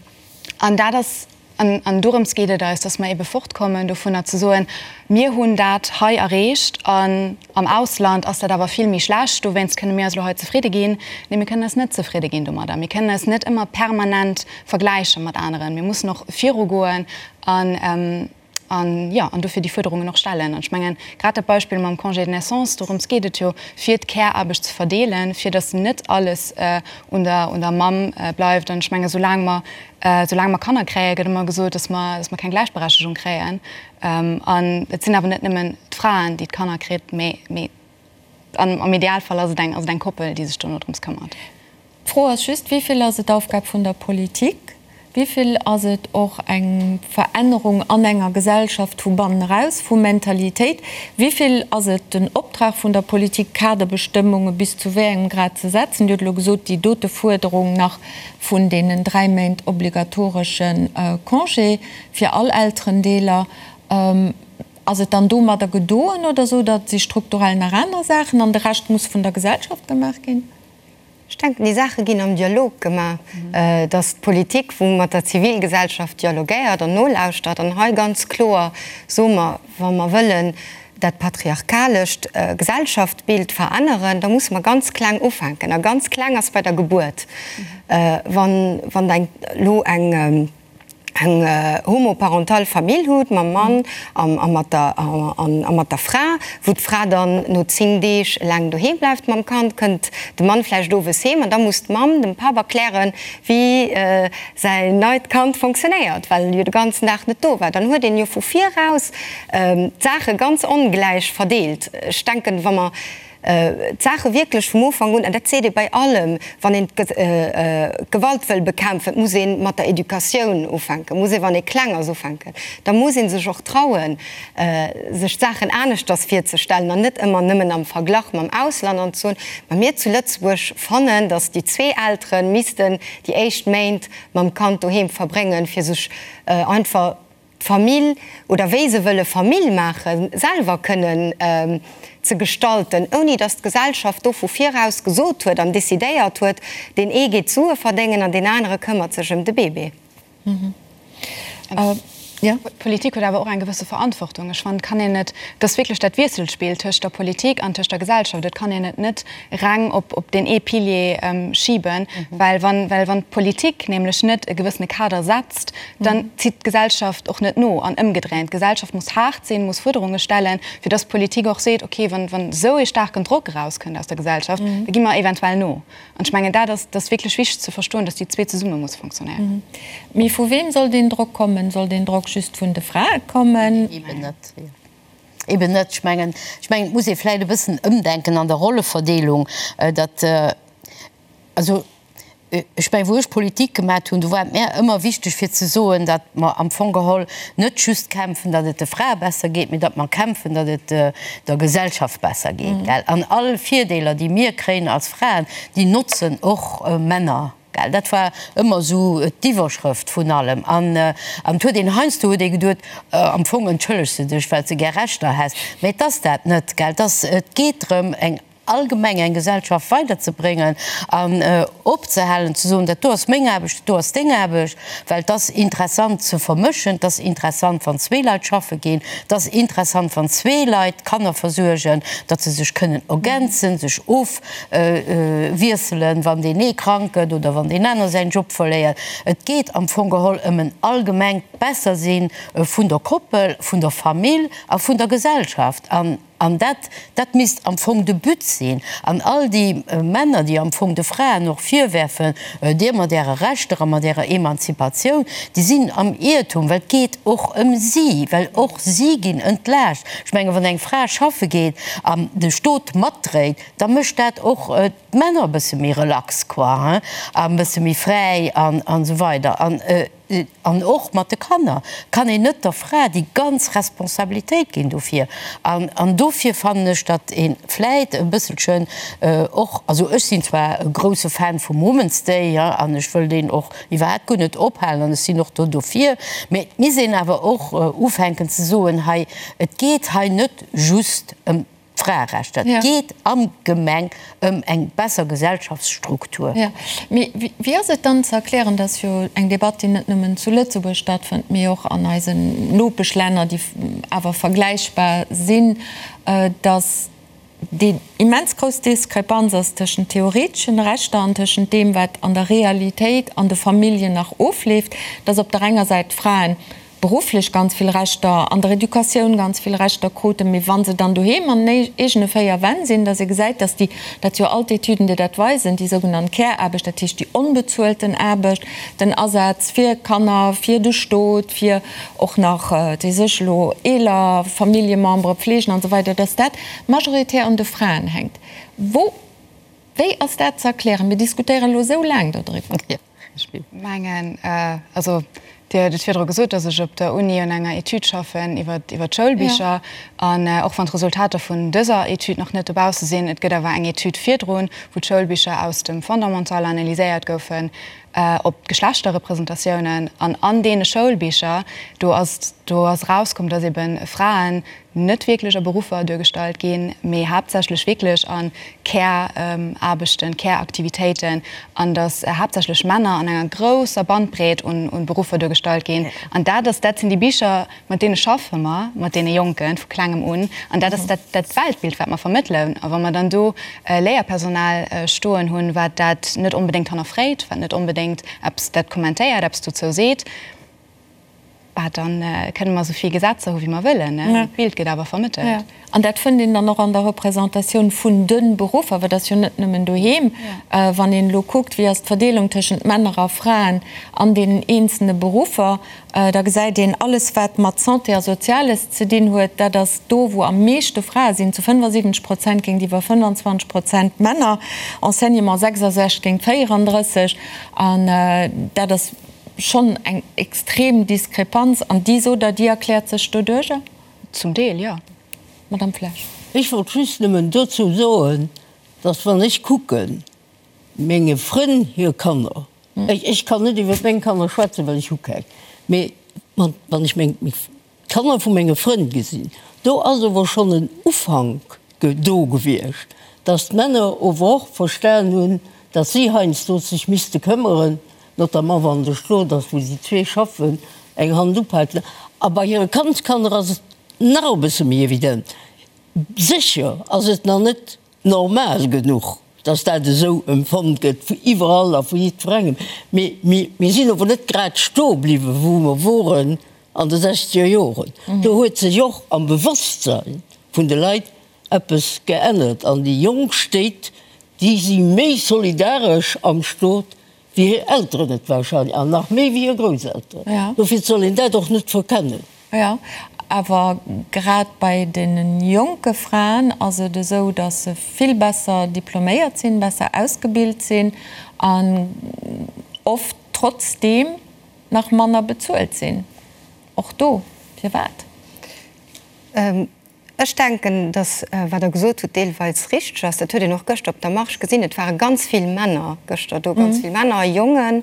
D: an dat ass. An dorëms geet et eis, dass mer ebe fortkommen dovunner ze soen, mir hunn dat hei erreecht an am Ausland ass dat awer vill méi schlecht, dowéinst kënne mir eis elo hei zefridde ginn. Nee, mir kënnen eis net zefridde ginn domadder. Mir kënnen eis net ëmmer permanent vergläiche mat aneren. Mir mussen och virugoen an An, jo, an dofir déi Fuerderungen och stellen. An ech mengen, grad dat Beispill mam Congé de naissance, dorëms geet et jo, fir d'Care-Aarbecht ze verdeelen, fir datt net alles un der, un der Mamm bleift. An ech mengen, soulaang mer, soulaang mer Kanner kréien, gëtt ëmmer gesot, datt mer, datt mer keng Gläichberechtegung kréien. An et sinn awer net nëmmen d'Fraen, déi d'Kanner kritt, mee, mee am Idealfall ass et eng, ass et eng Koppel, déi sech dono drëms këmmert.
A: D'Fro ass just, Wéi vill ass et Aufgab vun der Politik? Wéi vill ass et och eng Verännerung an enger Gesellschaft vu bannen eraus, vu Mentalitéit? Wéi vill ass et den Optrag vun der Politik, Kaderbestëmmunge bis zu wéi engem Grad ze setzen? Dir hutt elo gesot, déi dote Fuerderung nach vun deenen 3 Méint obligatoresche Congé fir all Elterendeeler. Ass et dann domadder gedoen oder sot Der, et si strukturell nach aner Saachen an de Rescht muss vun der Gesellschaft gemaach ginn?
B: Ech denken, déi Saache ginn am Dialog gemaach, dass d'Politik, wou mat der Zivilgesellschaft dialogéiert an nolauschtert an hei ganz kloer soe mer, wa mer wëllen dat patriarchalescht Gesellschaftsbild veränneren, da musse mer ganz kleng ufänken. A ganz kleng ass bei der Gebuert. Wann elo eng. eng homoparental Famill hutt mam Mann a mat der a mat der Fra, wou d'Fra dann no 10 Deeg eleng doheem bleift mam Kand, kënnt de Mann vläicht owes heem an da muss d'Mamm dem Papp erklären, wéi säin neit Kand fonctionnéiert, well e jo de ganzen Dag net do war. Dann huet een jo vu viraus d'Saache ganz ongläich verdeelt. Ech denken, wa mer d'Saache wierklech vum Ufank un, an dat seet ee bei allem, wann een d'Gewalt wëll bekämpfen, muss ee mat der Educatioun ufänken, muss ee wann ee kleng ass ufänken, da muss ee sech och trauen, sech d'Saachen aneschters virzestellen an net ëmmer nëmmen am Verglach mam Ausland an ze soen, ma mir zu Lëtzebuerg fannen, datt déi zwee Eltere missten déi éischt Méint mam Kand doheem verbréngen, fir sech einfach d'Famill oder wéi se wëlle Famill maachen, selwer kënnen ze gestalten, ouni datt d'Gesellschaft do vu viraus gesot huet an decidéiert huet, deen ee geet Sue verdéngen an deen anere këmmert sech ëm de Bébé.
D: D'Politik huet awer och eng gewësse Verantwortung. Ech fannen, et kann een et, et ass wierklech dat Wiesselspill tëscht der Politik an tëscht der Gesellschaft, et kann een et net reng op op deen ee Pilier schiben, well wann, well wann d'Politik nämlech net e gewëssene Kader setzt, dann zitt d'Gesellschaft och net no. An ëmgedréint, d'Gesellschaft muss haart sinn, muss Fuerderunge stellen, fir dass d'Politik och seet, okay, wann, wann esou ee staarken Drock erauskënnt aus der Gesellschaft, da gi mer eventuell no. An ech mengen, dat ass, dat ass wierklech wichteg ze verstoen, dass déi zwee zesumme musse funktionéieren.
A: Mee vu weem soll deen Drock kommen? Soll deen Drock just vun de Frae kommen?
E: Eben net. Eben net. Ech mengen, ech mengen, et muss ee vläicht e bëssen ëmdenken an der Rolleverdeelung, datt, also ech mengen, wou ech Politik gemat hunn, do war et mär ëmmer wichteg fir ze soen, datt mer am Fong geholl net just kämpfen, datt et de Frae besser geet, mee datt mer kämpfen, datt et der Gesellschaft besser geet, gell. An all Virdeeler, déi mir kréien als Fraen, déi notzen och Männer. Gell, dat war ëmmer esou d'Iwwerschrëft vun allem. An et huet een heiansdo huet ee geduet, am Fong entschëllegs de dech, well s de gär Rechter häss. Mä et ass dat net, gell. Et ass, et geet drëm, eng allgemeng eng Gesellschaft weiderzebréngen an opzehalen ze soen, dat do ass meng Aarbecht, dat do ass deng Aarbecht, well et ass interessant ze vermëschen, et ass interessant, wann zwee Leit schaffe ginn, et ass interessant, wann zwee Leit d'Kanner versuergen, datt se sech kënnen ergänzen, sech of. Wiesselen, wann deen ee krank gëtt oder wann deen aner säin Job verléiert. Et geet am Fong geholl ëm en allgemengt Bessersinn vun der Koppel, vun der Famill a vun der Gesellschaft. An, an dat, dat misst am Fong de But sinn. An all déi Männer, déi am Fong de Fraen och virwerfen, Dir mat Äre Rechter a mat Ärer Emanzipatioun, déi sinn am Iertum, well et geet och ëm si, well och si ginn entlaascht. Ech menge wann eng Fra schaffe geet an de Stot matdréit, da mécht dat och d'Männer e bësse méi relax quoi hein, a e bësse méi fräi an an esou weider. An an och mat de Kanner kann een net der Fra déi ganz Responsabilitéit ginn dofir. An an dofir fannen ech, datt ee vläit e bësselchen och, also ech sinn zwar e grousse Fan vum Women's Day, hein, an ech wëll deen och iwwerhaapt guer net ophalen an ech sinn och do dofir, mä et misst een awer och ufänken ze soen, hei et geet hei net just ëm. d'Fraerechter, et geet am Gemeng ëm eng besser Gesellschaftsstruktur.
A: Jo, mee wéi ass et dann ze erklären, dass jo eng Debatt, déi net nëmmen zu Lëtzebuerg stattfënnt, mee och an eisen Nopeschlänner, déi awer vergläichbar sinn, dass déi immens grouss Diskrepanz ass tëschent theoreteschen Rechter an tëschent deem, wat an der Realitéit an de Familljen nach ofleeft, dass op der enger Säit d'Fraen berufflech ganz vill Rechter, an der Educatioun ganz vill Rechter kruten, mee wa se dann doheem an den eegene 4 Wänn sinn, dass ee gesäit, dass déi, dat si jo all d'Etüden, déi dat weisen, déi sougenannt Care-Aarbecht, dat heescht déi onbezuelten Aarbecht, den Asaz fir Kanner, fir de Stot, fir och nach déi sech elo eeler Familljemembere pflegen an esou weider, dass dat majoritär un de Fraen hänkt. Wou, wéi ass dat ze erklären? Mir diskutéieren elo esou laang dodriwwer.
D: Ech mengen, also Dir hutt et virdru gesot, datt ech op der Uni un enger Etüd schaffen iwwer d'Schoulbicher. An och wann d'Resultater vun dëser Etüd nach net dobausse sinn, et gëtt awer eng Etüd virdrun, wou d'Schoulbicher aus dem Fondamental analyséiert goufen op d'Geschlechterrepresentatiounen. An an deene Schoulbicher, do ass do ass erauskomm, datt ebe Fraen net wierklech a Beruffer duergestallt ginn, mee haaptsächlech wierklech a Care-Aarbechten, Care-Aktivitéiten, an datt haaptsächlech Männer an enger grousser Bandbreet un Beruffer duergestallt ginn. An dat ass, dat sinn déi Bicher, mat deene schaffe mer, mat deene Jonken vu Klengem un, an dat ass dat dat Weltbild, wat mer vermëttelen. A wa mer dann do Léierpersonal stoen hunn, wat dat net onbedéngt hannerfréit, wat net onbedéngt eppes dat kommentéiert, eppes dozou seet, Bah, dann kënne mer esou vill Gesetzer hu wéi mer wëllen, mee d'Bild gëtt awer vermëttelt.
A: An dat fënnt een dann och an der Representatioun vun de Beruffer, well et ass jo net nëmmen doheem. Wann een elo kuckt, wéi ass d'Verdeelung tëschent Männer a Fraen an deenen eenzelne Beruffer, da gesäit een, alles wat mat Santé a Soziales ze dinn huet, dat ass do wou am meeschte Frae sinn, zu 75 Prozent géintiwwer 25 Prozent Männer, Enseignement 66 géint 34, an dat ass Schonn eng extrem Diskrepanz. An déi, sot Der, déi erkläert sech doduerjer?
D: Zum Deel, jo.
A: Madame Flesch.
C: Ech wollt just nëmmen dozou soen, dass, wann ech kucken, menge Frënn hir Kanner, ech kann net iwwer meng Kanner schwätzen, well ech hu keng, mee wann ech meng D'Kanner vu menge Frënn gesinn. Do ass ower schonn en Ufank do gewiescht, dass d'Männer ower och verstan hunn, dass si heiansdo sech misste këmmeren, notamment wann de Stot ass, wou si zwee schaffen, eng Hand upaken. A bei hire Kandskanner ass et nach e bësse méi evident. Sécher ass et nach net normal genuch, dass dat esou empfonnt gëtt vu iwwerall a vu jiddwerengem. Mee mir sinn ower net grad stoe bliwwen, wou mer woren an de sechzeger Joren. Do huet sech och am Bewosstsein vun de Leit eppes geännert an déi jonk Stéit, déi si méi solidaresch am Stot wéi hir Elteren et wahrscheinlech an nach méi wéi hir Grousselteren. Dofir soll een dat och net verkennen.
A: Jo, awer grad bei deene jonke Fraen ass et esou, datt se vill besser diploméiert sinn, besser ausgebilt sinn an oft trotzdeem nach manner bezuelt sinn. Och do, firwat?
B: Ech denken, datt wat Der gesot hutt deelweis richteg ass. Dat huet een och gëschter op der Marche gesinn. Et ware ganz vill Männer gëschter do, ganz vill Männer a Jongen.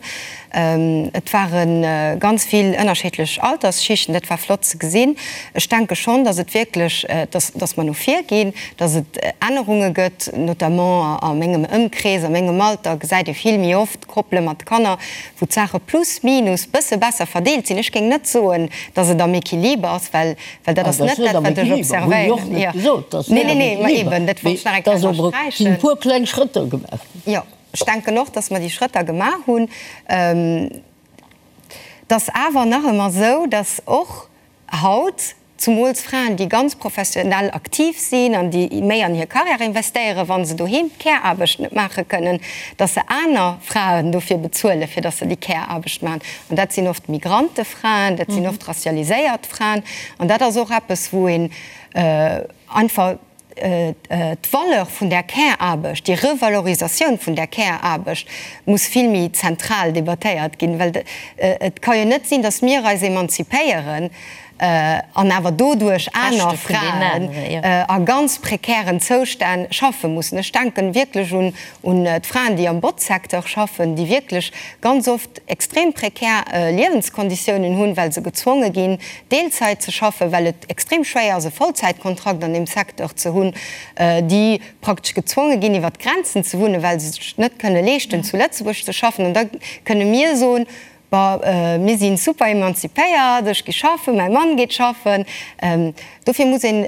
B: Et ware ganz vill ënnerschiddlech Altersschichten. Dat war flott ze gesinn. Ech denke schonn, datt et wierklech, datt, datt mer no vir ginn, datt et Ännerunge gëtt, notamment a mengem Ëmkrees, a mengem Alter gesäit ee vill méi oft Koppele mat Kanner, wou d'Saache plus minus bësse besser verdeelt sinn. Ech géing net soen, datt et am Equiliber ass, well Well dat ass net dat, wat ech observéieren. Nee, nee, nee, ma eben, dat wollt ech nach eng Kéier ënnersträichen.
C: Et sinn e puer kleng Schrëtter gemaach
B: ginn. Jo, ech denken och, dass mer déi Schrëtter gemaach hunn. Et ass awer nach ëmmer esou, dass och haut zumools Fraen, déi ganz professionell aktiv sinn an déi méi an hir Carrière investéieren, wa se doheem d'Care-Aarbecht net maache kënnen, dass se aner Fraen dofir bezuelen, fir dass se déi Care-Aarbecht maachen. An dat sinn oft Migrantefraen, dat sinn oft racialiséiert Fraen. An dat ass och eppes, wou een einfach d'Valeur vun där Care-Aarbecht, déi Revalorisatioun vun där Care-Aarbecht muss vill méi zentral debattéiert ginn, well et ka jo net sinn, datt mir eis emanzipéieren. An awer doduerch aner Fraen a ganz prekären Zoustänn schaffe mussen. Ech denken wierklech un d'Fraen, déi am Botzsecteur schaffen, déi wierklech ganz oft extrem prekär Liewenskonditiounen hunn, well se gezwonge ginn, Deelzäit ze schaffen, well et extrem schwéier ass, e Vollzäitkontrakt an deem Secteur ze hunn, déi praktesch gezwonge ginn, iwwer d'Grenzen ze wunnen, well se sech net kënne leeschten, zu Lëtzebuerg ze schaffen. An da kënne mir soen, Bon, mir si super emanzipéiert, ech gi schaffen, mäi Mann geet schaffen. Dofir muss een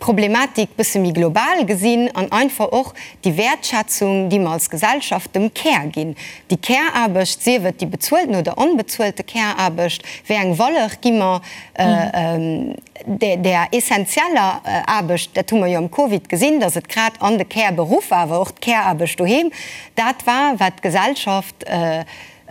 B: d'Problematik bësse méi global gesinn an einfach och déi Wäertschätzung, déi mer als Gesellschaft dem Care ginn, déi Care-Aarbecht, sief et déi bezuelten oder onbezuelte Care-Aarbecht, wéi eng Valeur gi mer där essentieller Aarbecht, dat hu mer jo am Covid gesinn, datt et grad an de Care-Beruffer, awer och d'Care-Aarbecht doheem, dat war, wat d'Gesellschaft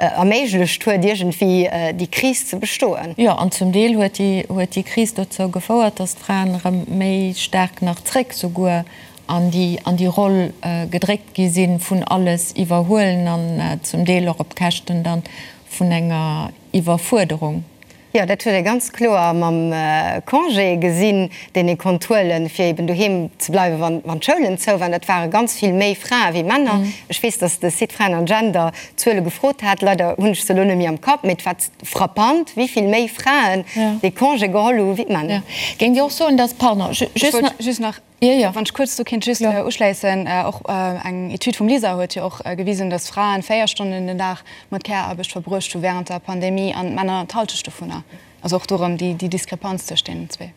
B: erméiglecht huet, iergendwéi déi Kris ze bestoen.
A: Jo, an zum Deel huet déi, huet déi Kris dozou gefouert, datt d'Fraen erëm méi staark nach zréck souguer an déi, an déi Roll gedréckt gi sinn vun alles iwwerhuelen an zum Deel och op Käschten dann vun enger Iwwerfuerderung.
B: Jo, dat huet ee ganz kloer mam Congé gesinn, deen ee konnt huelen, fir eben doheem ze bleiwen, wann, wann d'Schoulen zou waren. Dat ware ganz vill méi Frae wéi Männer. Ech weess, datt de Site Fraen an Gender Zuele gefrot hat. Leider hunn ech se elo net méi am Kapp, mee et war frappant, wéi vill méi Fraen dee Congé geholl hu wéi d'Männer.
A: Géingt Dir och soen, datt, pardon,
D: just nach Wann ech kuerz do kinnt just uschléissen, och eng Etüd vum LISER huet jo och gewisen, datt Fraen 4 Stonnen den Dag mat Care-Aarbecht verbruecht hu wärend der Pandemie an d'Männer d'Hallschecht dovunner. Also och do erëm déi Diskrepanz tëscht deenen zwee.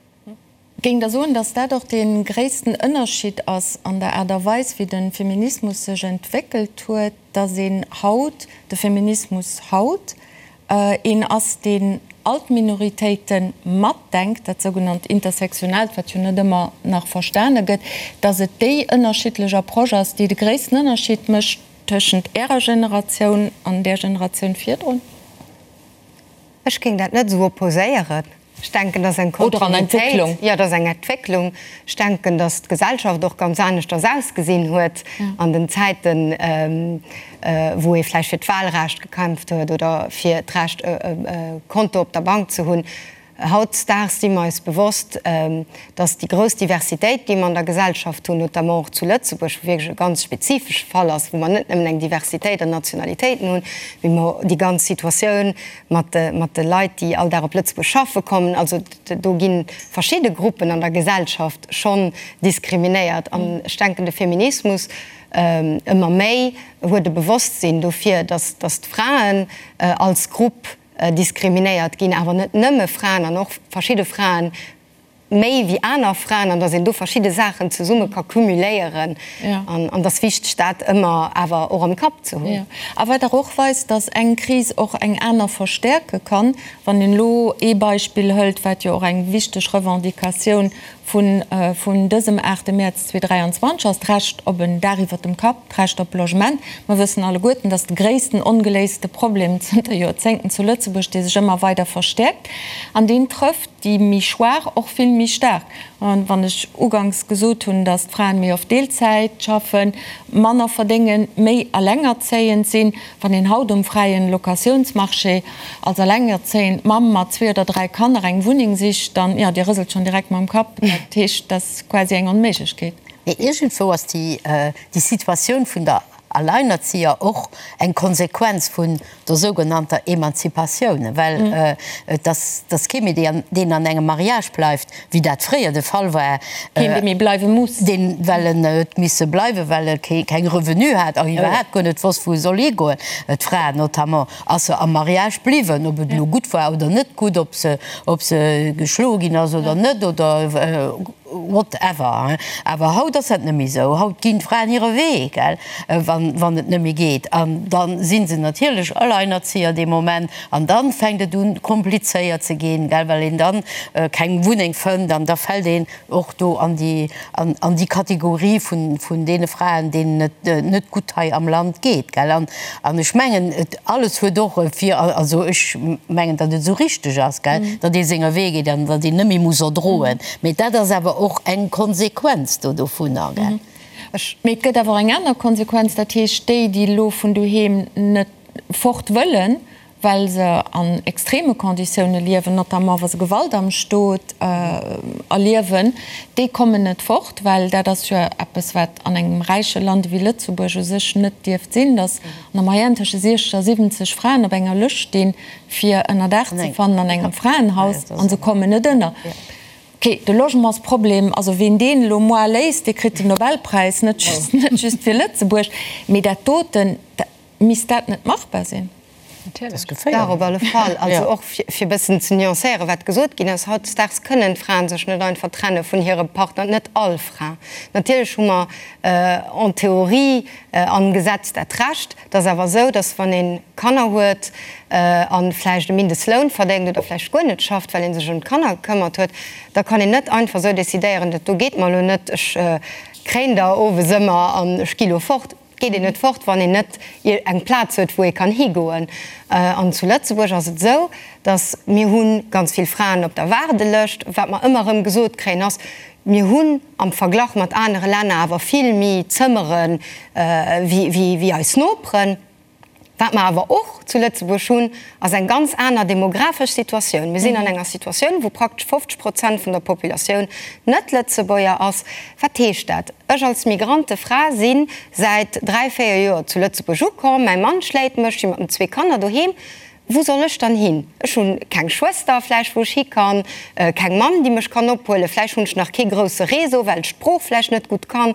A: Géing Der soen, datt dat och dee gréissten Ënnerscheed ass an der Aart a Weis, wéi de Feminismus sech entwéckelt huet, datt een haut, de Feminismus haut, een ass, deen all d'Minoritéite matdenkt, dat sougenannt Intersektionaalt, wat jo net ëmmer nach verstane gëtt, datt et déi ënnerschiddlech Approche ass, déi de gréissten Ënnerschied mécht tëschent Ärer Generatioun an där Generatioun virdrun?
B: Ech géing dat net esou opposéieren. Ech denken, dat ass eng Kontinuitéit. Jo, dat ass eng Entwécklung. Ech denken, datt d'Gesellschaft och ganz aneschters ausgesinn huet an den Zäiten, wou ee vläicht fir d'Wahlrecht gekämpft huet oder fir d'Recht, e Konto op der Bank ze hunn. Hautdesdaags si mer eis bewosst, datt déi grouss Diversitéit, déi mer an der Gesellschaft hunn, notamment och zu Lëtzebuerg, wou wierklech e ganz spezifesche Fall ass, wou mer net nëmmen eng Diversitéit an Nationalitéiten hunn, mee mer déi ganz Situatioun mat de Leit, déi all Dag op Lëtzebuerg schaffe kommen. Also do gi verschidde Gruppen an der Gesellschaft schonn diskriminéiert. An ech denken, de Feminismus ëmmer méi huet e Bewosstsinn dofir, datt d'Fraen als Grupp diskriminéiert ginn, awer net nëmme Fraen an och verschidde Fraen méi wéi aner Fraen an dass een do verschidde Saachen zesumme ka cumuléieren an an dass wichteg dat ëmmer awer och am Kapp ze hunn.
A: A wat dach och weist, dass eng Kris och eng aner verstärke kann, wann een elo ee Beispill hëlt, wat jo och eng wichteg Revendicatioun vun vun dësem 8 Mäerz 2023 ass, d'Recht op en Daach iwwert dem Kapp, d'Recht op Logement. Mer wëssen alleguerten, dass de gréissten ongeléiste Problem zënter Joerzéngten zu Lëtzebuerg, dee sech ëmmer weider verstäerkt an deen trëfft déi méi schwaach och vill méi staark. An wann ech uganks gesot hunn, dass d'Fraen méi oft Deelzäit schaffen, manner verdéngen, méi alengerzéiend sinn, wann een haut um fräien Locatiounsmarché als alengerzéiend Mamm mat zwee oder dräi Kanner eng Wunneng sicht, dann, jo, Dir rëselt schonn direkt mam Kapp, dat heescht, dat ass quasi eng Onméiglechkeet.
E: Mee iergendwou ass déi Situatioun vun der Alleinerzieher och eng Konsequenz vun der sougenannter Emanzipatioun, well et ass kee méi, deen an engem Mariage bleift, wéi dat fréier de Fall war.
A: Keen, dee méi bleiwe muss.
E: Deen, well en huet misse bleiwen, well e keng Revenue hat a iwwerhaapt guer net wosst, wou e soll higoen. D'Fra notamment ass se am Mariage bliwwen, ob et elo gutt war oder net gutt, ob se, ob se geschloe ginn ass oder net oder. Whatever, awer haut ass dat net méi esou. Haut ginn d'Fraen hire Wee, gell, wann, wann et net méi geet. An da si se natierlech Alleinerzieher dee Moment. An da fänkt et un, komplizéiert ze ginn, gell, well een dann keng Wunneng fënnt. An da fält een och do an déi, an, an déi Kategorie vun, vun deene Fraen, deenen et net gutt hei am Land geet, gell. An, an ech mengen, et alles huet och e Vir, also ech mengen, datt et esou richteg ass, gell, datt ee senger Wee geet an datt een net méi muss erdroen. Mee dat ass awer och eng Konsequenz do dovunner, gell?
A: Mee et gëtt awer och eng aner Konsequenz, dat heescht, déi, déi elo vun doheem net fort wëllen, Well se an extreme Conditioune liewen, notamment wa se Gewalt am Stot erliewen, déi kommen net fort, well dat ass jo eppes, wat an engem räiche Land ewéi Lëtzebuerg u sech net dierft sinn, datt an der Moyenne tësche 60 a 70 Fraen op enger Lëscht stinn, fir Ënnerdaach ze fannen an engem Fraenhaus, a se kommen net ënner. Ok, de Logementsproblem, also ween deen elo moar léist, dee kritt den Nobelpräis, net just fir Lëtzebuerg, mee dat doten, Misst dat net machbar sinn?
B: Dach, op alle Fall. Also och fir e bëssen ze nuancéieren, wat gesot ginn ass, Hautdesdaags kënnen d'Fraen sech net einfach trenne vun hirem Partner, net all Fra. Natierlech hu mer en théorie am Gesetz dat Recht. Et ass awer esou, datt wann ee Kanner huet a vläicht e Mindestloun verdéngt oder vläicht guer net schafft, well ee sech ëm d'Kanner gekëmmert huet, da kann een net einfach esou decidéieren, dat do geet mer elo net, ech kréien der owes ëmmer an ech gi lo fort. Et geet een net fort, wann een net eng Plaz huet, wou ee kann higoen. An zu Lëtzebuerg ass et esou, datt mir hu ganz vill Fraen op der Waardelëscht. Wat mer ëmmer erëm gesot kréien, ass, mir hunn am Verglach mat anere Länner awer vill méi Zëmmere wéi eis Noperen. Wat mer awer och zu Lëtzebuerg hunn, ass eng ganz aner demografesch Situatioun. Mir sinn an enger Situatioun, wou praktesch 50 Prozent vun der Populatioun net Lëtzebuerger ass. Wat heescht dat? Ech als Migrantefra si säit dräi, véier Joer zu Lëtzebuerg ukomm, mäi Mann schléit mech, ech si mat den zwee Kanner doheem. Wou soll ech dann hin? Ech hu keng Schwëster vläicht, wou ech hi kann, keng Mamm, déi mech kann ophuelen, vläicht hunn ech nach kee grousse Réseau, well ech d'Sprooch vläicht net gutt kann.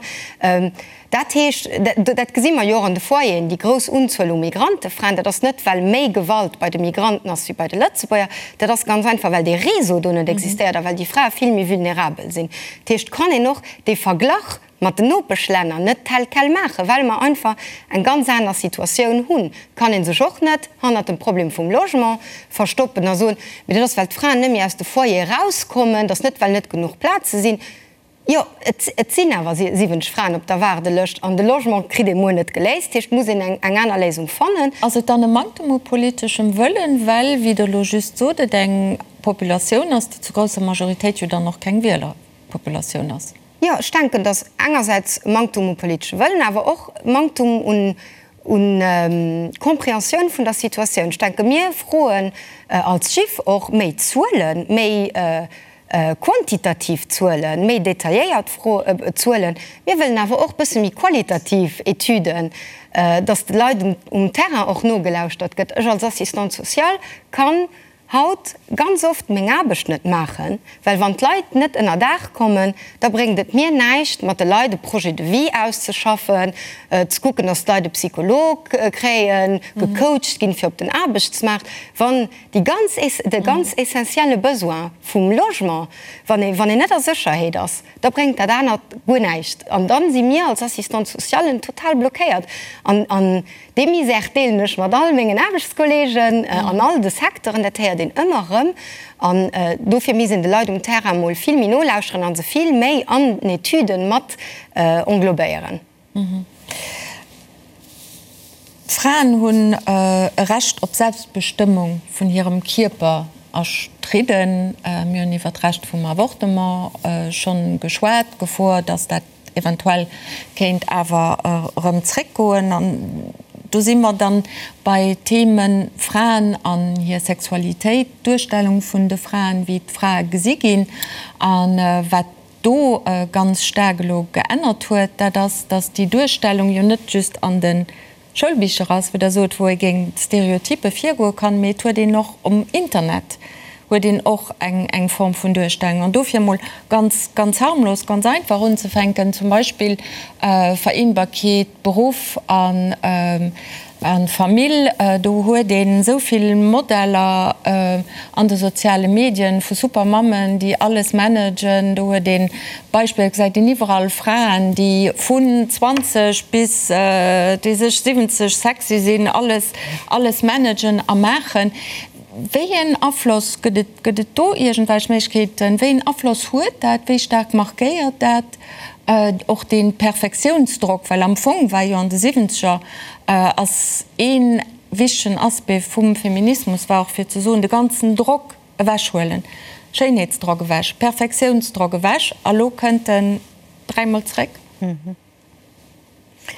B: Dat heescht, dat gesi mer jo och an de Foyeren, déi grouss Unzuel u Migrantefraen, dat ass net, well méi Gewalt bei de Migranten ass wéi bei de Lëtzebuerger, dat ass ganz einfach, well dee Réseau do net existéiert a well déi Frae vill méi vulnerabel sinn. Dat heescht, kann een och dee Verglach mat den Nopeschlänner net tel quel maachen, well mer einfach eng ganz aner Situatioun hunn, kann ee sech och net hannert dem Problem vum Logement verstoppen a soen, mee dat ass, well d'Fraen net méi aus de Foyere erauskommen, dat ass net, well net genuch Plaze sinn. Jo, et sinn awer 70 Fraen op der Waardelëscht an de Logement kritt ee muer net geléist. Dat heescht, et muss een eng aner Léisung fannen.
A: Ass et dann e Manktem u politeschem Wëllen, well, wéi Der elo just sot, et eng Populatioun ass, déi zu grousser Majoritéit jo dann och keng Wielerpopulatioun ass?
B: Jo, ech denken, datt engersäits Manktum u politesche Wëllen, awer och Manktum un un Compréhensioun vun der Situatioun. Ech denke mir froen als JIF och méi Zuelen, méi quantitativ Zuelen, méi detailléiert Zuelen. Mir wëllen awer och bësse méi qualitativ Etüden, datt de Leit um Terrain och nogelauschtert gëtt. Ech als Assistante sociale kann haut ganz oft meng Aarbecht net maachen, well wann d'Leit net ënnerdaach kommen, da bréngt et mir näischt, mat de Leit e Projet de vie auszeschaffen, ze kucken, dass d'Leit e Psycholog kréien, gecoacht ginn fir op den Aarbechtsmaart, wann déi ganz, de ganz essentielle Besoin vum Logement, wann ee, wann een net a Sécherheet ass, da bréngt dat anert guer näischt. An dann si mir als Assistante socialen total blockéiert. An, an Dee Misère deelen ech mat all mengen Aarbechtskolleegen an all de Secteuren. Dat héiert een ëmmer erëm. An dofir misst een de Leit um Terrain mol vill méi nolauschteren a se vill méi an den Etüden mat englobéieren.
A: D'Fraen hunn e Recht op Selbstbestëmmung vun hirem Kierper erstridden. Mir hunn iwwer d'Recht vum Avortement schonn geschwat, d'Gefor, dass dat eventuell kéint awer erëm zréckgoen. An do si mer dann bei Themen Fraen an hir Sexualitéit, d'Duerstellung vun de Fraen, wéi d'Frae gesi ginn. A wat do ganz staark elo geännert huet, dat ass, datt déi Duerstellung jo net just an de Schoulbicher ass, wou Der sot, wou ee géint Stereotyppe virgoe kann, mee et huet een och um Internet huet een och eng eng Form vun Duerstellung. An dofir emol ganz, ganz harmlos, ganz einfach unzefänken, zum Beispill Vereenbarkeet Beruff an A Famill, do huet een esou vill Modeller an de soziale Medien vu super Mammen, déi alles managen. Do huet een Beispiller, gesäit een iwwerall Fraen, déi vun 20 bis déi sech 70 sexy sinn, alles, alles managen a maachen. Wéi een Afloss, gëtt et, gëtt et do iergendwelch Méiglechkeeten, wéi een Afloss huet dat, wéi staark markéiert dat och dee Perfektiounsdrock, well am Fong war jo an de Siwwenzeger ass ee wichtegen Aspect vum Feminismus war och fir ze soen, de ganzen Drock ewechhuelen, Schéinheetsdrock ewech, Perfektiounsdrock ewech, a lo kënnt en dräimol zréck.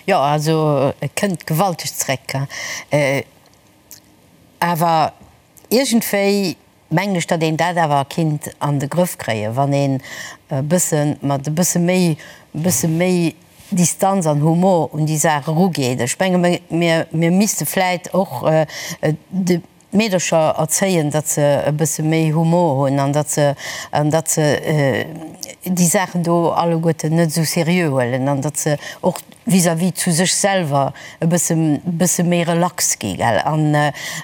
E: Jo, also e kënnt gewalteg zréck. Awer iergendwéi mengen ech, datt een dat awer kinnt an de Grëff kréien, wann een e bësse mat e bësse méi, e bësse méi Distanz an Humor un déi Saach erugeet. Ech menge mir, mir misste vläit och de Meedercher erzéien, datt se e bësse méi Humor hunn an datt se, an datt se déi Saachen do alleguerten net esou seriö huelen an datt se och vis-à-vis zu sech selwer e bësse, bësse méi relax gi, gell. An,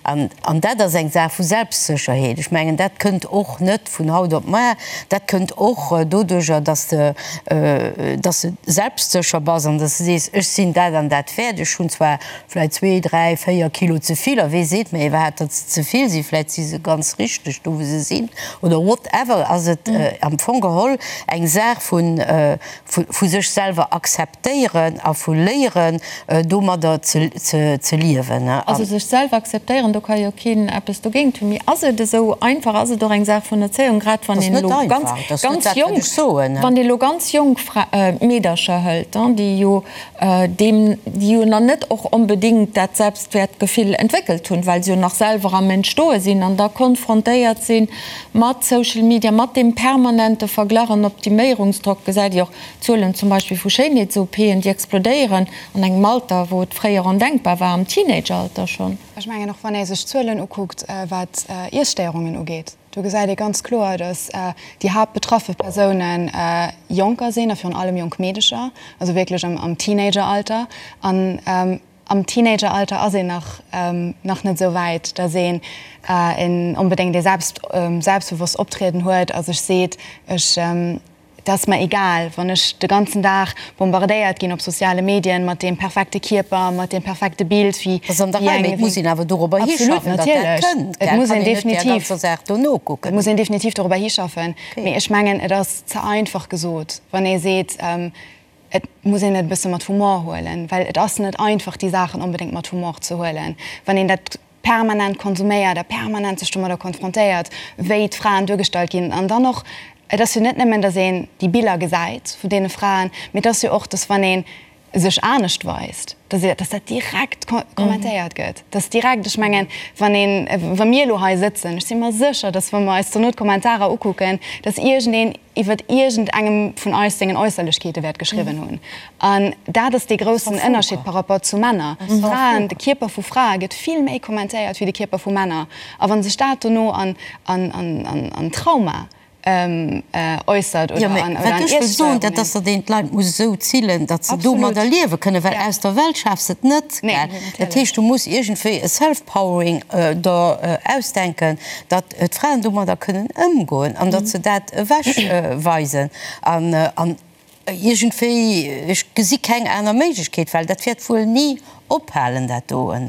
E: an, an dat ass eng Saach vu Selbstsécherheet. Ech mengen, dat kënnt och net vun haut op mar. Dat kënnt och doduerjer, datt s de, datt s de selbstsécher bass an datt s de sees, ech sinn dat an dat wäert. Ech hunn zwar vläit zwee, dräi, véier Kilo ze vill, a wee seet mir iwwerhaapt, datt se ze vill sinn, vläit si se ganz richteg do, wou se sinn, oder whatever, ass et am Fong geholl eng Saach vu vu sech selwer akzeptéieren a vu léieren, domadder ze liewen.
A: Also sech selwer akzeptéieren, do ka jo keen eppes dogéint hunn. Mee ass et esou einfach? Ass et och eng Saach vun Erzéiung, grad wann een elo ganz, ganz jonk, wann ee elo ganz jonk Meedercher hëlt, déi jo deem, déi jo nach net och onbedéngt dat Selbstwäertgefill entwéckelt hunn, well se jo nach selwer am Entstoe sinn an da konfrontéiert si mat Social Media, mat deem permanente Verglach an Optiméierungsdrock, gesäit Dir och d'Zuelen zum Beispill vu Schéinheets-OPen, déi explodéieren an engem Alter, wou et fréier ondenkbar war, am Teenageralter schonn.
D: Ech mengen och, wann ee sech d'Zuelen ukuckt, wat Iesstéierungen ugeet, Do gesäit ee ganz kloer, datt déi haaptbetraffe Persoune Jonker sinn a virun allem jonk Meedecher, also wierklech am Teenageralter. An am Teenageralter ass een nach nach net esou wäit, datt een onbedéngt ee selbstbewosst Optrieden huet a sech seet, ech Et ass mer egal, wann ech de ganzen Dag bombardéiert ginn op soziale Medien mat deem perfekte Kierper, mat deem perfekte Bild, wéi
E: Dat ass an der Rei, mee et muss een awer dorobber
D: hinschaffen, datt dat kënnt, gell? Et muss een definitiv, et muss een definitiv dorobber hischaffen. Mee ech mengen, et ass ze einfach gesot, wann ee seet, et muss een et e bësse mat Humor huelen, well et ass net einfach, déi Saachen onbedéngt mat Humor ze huelen, wann een dat permanent konsuméiert a permanent sech domadder konfrontéiert, wéi d'Fraen duergestallt ginn. An dann och, et ass jo net nëmmen, datt een déi Biller gesäit vun deene Fraen, mee et ass jo och, datt wann ee sech anescht weist, datt datt dat direkt kommentéiert gëtt, datt direkt, ech mengen, wann een, wa mir elo hei sëtzen, ech si mer sécher, datt wa mer eis dono d'Kommentarer ukucken, datt iergendeen iwwert iergend engem vun eis sengen Äusserlechkeete wäert geschriwwen hunn. An dat ass dee groussen Ënnerscheed par rapport zu Männer. Fraen, de Kierper vu Frae gëtt vill méi kommentéiert wéi de Kierper vu Männer. A wa sech dat dono an, an, an, an Trauma äussert
E: oder an, oder an Wat ech wëll soen, dat ass, datt een d'Leit muss esou zillen, datt se domadder liewe kënnen, well aus der Welt schafs de et net. Dat heescht, du muss iergendwéi e Self-Powering der ausdenken, datt d'Fraen domadder kënnen ëmgoen an datt se dat ewech weisen an an iergendwéi, ech gesi keng aner Méiglechkeet, well dat wäert wuel ni ophalen dat doen.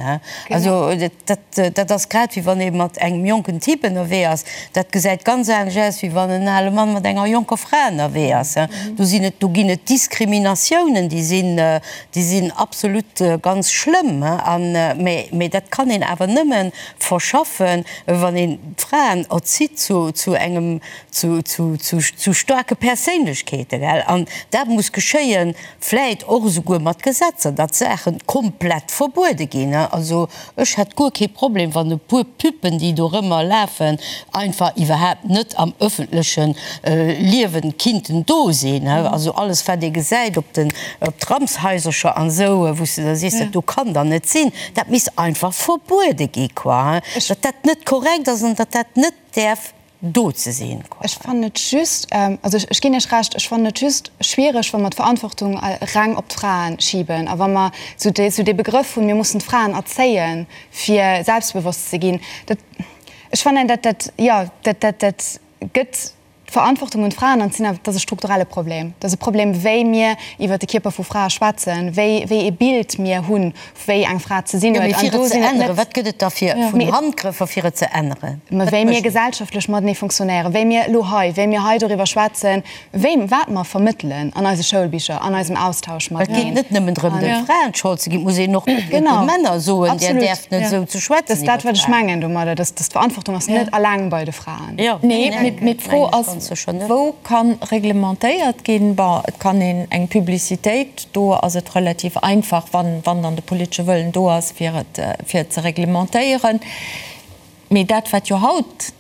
E: Also dat dat ass grad wéi wann ee mat engem jonken Typ ënnerwee ass, dat gesäit ganz anescht aus wéi wann en ale Mann mat enger jonker Fra ënnerwee ass. Do sinn et, do ginn et Diskriminatiounen, déi sinn, déi sinn absolut ganz schlëmm an, mä mä dat kann een awer nëmmen verschaffen, wann een d'Fraen erzitt zu, zu engem, zu, zu, zu, zu staarke Perséinlechkeeten, gell? An dat muss geschéien, vläit och esouguer mat Gesetzer, datt Saache komplett verbuede ginn. Also ech hätt guer kee Problem, wann e puer Püppen, déi dorëmmer lafen, einfach iwwerhaapt net am öffentleche Liewen kinnten do sinn. Also alles, wat ee gesäit op den, op d'Ramshaisercher an esou, wou s de da sees, dat do kann dann net sinn. Dat misst einfach verbuede gi, quoi, datt dat net korrekt ass an datt dat net däerf do ze sinn,
D: quoi. Ech fannen et just, also ech ginn Iech Recht, ech fannen et just schwiereg, wa mer d'Verantwortung reng op d'Frae schiben a wa mer esou dee, esou dee Begrëff hunn, mir mussen d'Fraen erzéien, fir selbstbewosst ze ginn. Dat, ech fannen dat, dat, jo, dat, dat, dat gëtt D'Verantwortung un d'Fraen an et ass e strukturelle Problem. Et ass e Problem, wéi mir iwwer de Kierper vu Frae schwätzen, wéi wéi ee Bild mir hunn, wéi eng Fra ze sinn
E: huet. Jo, mee fir et ze änneren, wat gëtt et da fir vun Handgrëffer, fir et ze änneren?
D: Mä wéi mir gesellschaftlech matenee funktionéieren, wéi mir elo hei, wéi mir hei doriwwer schwätzen, wéi, wat mer vermëttelen an eise Schoulbicher, an eisem Austausch
E: mateneen. Et geet net nëmmen drëm, de Fraen d'Schold ze ginn, et muss een och de Männer soen, Dir däerft net esou ze schwätzen
D: iwwer Fraen. Dat ass dat, wat ech mengen domadder, dass d'Verantwortung ass net alleng bei de Fraen.
A: Nee, mee d'Fro ass, wou ka reglementéiert ginn? Bon, et kann een eng Publicitéit, do ass et relativ einfach, wann dann de politesche Wëllen do ass, fir et, fir et ze reglementéieren. Mee dat, wat jo haut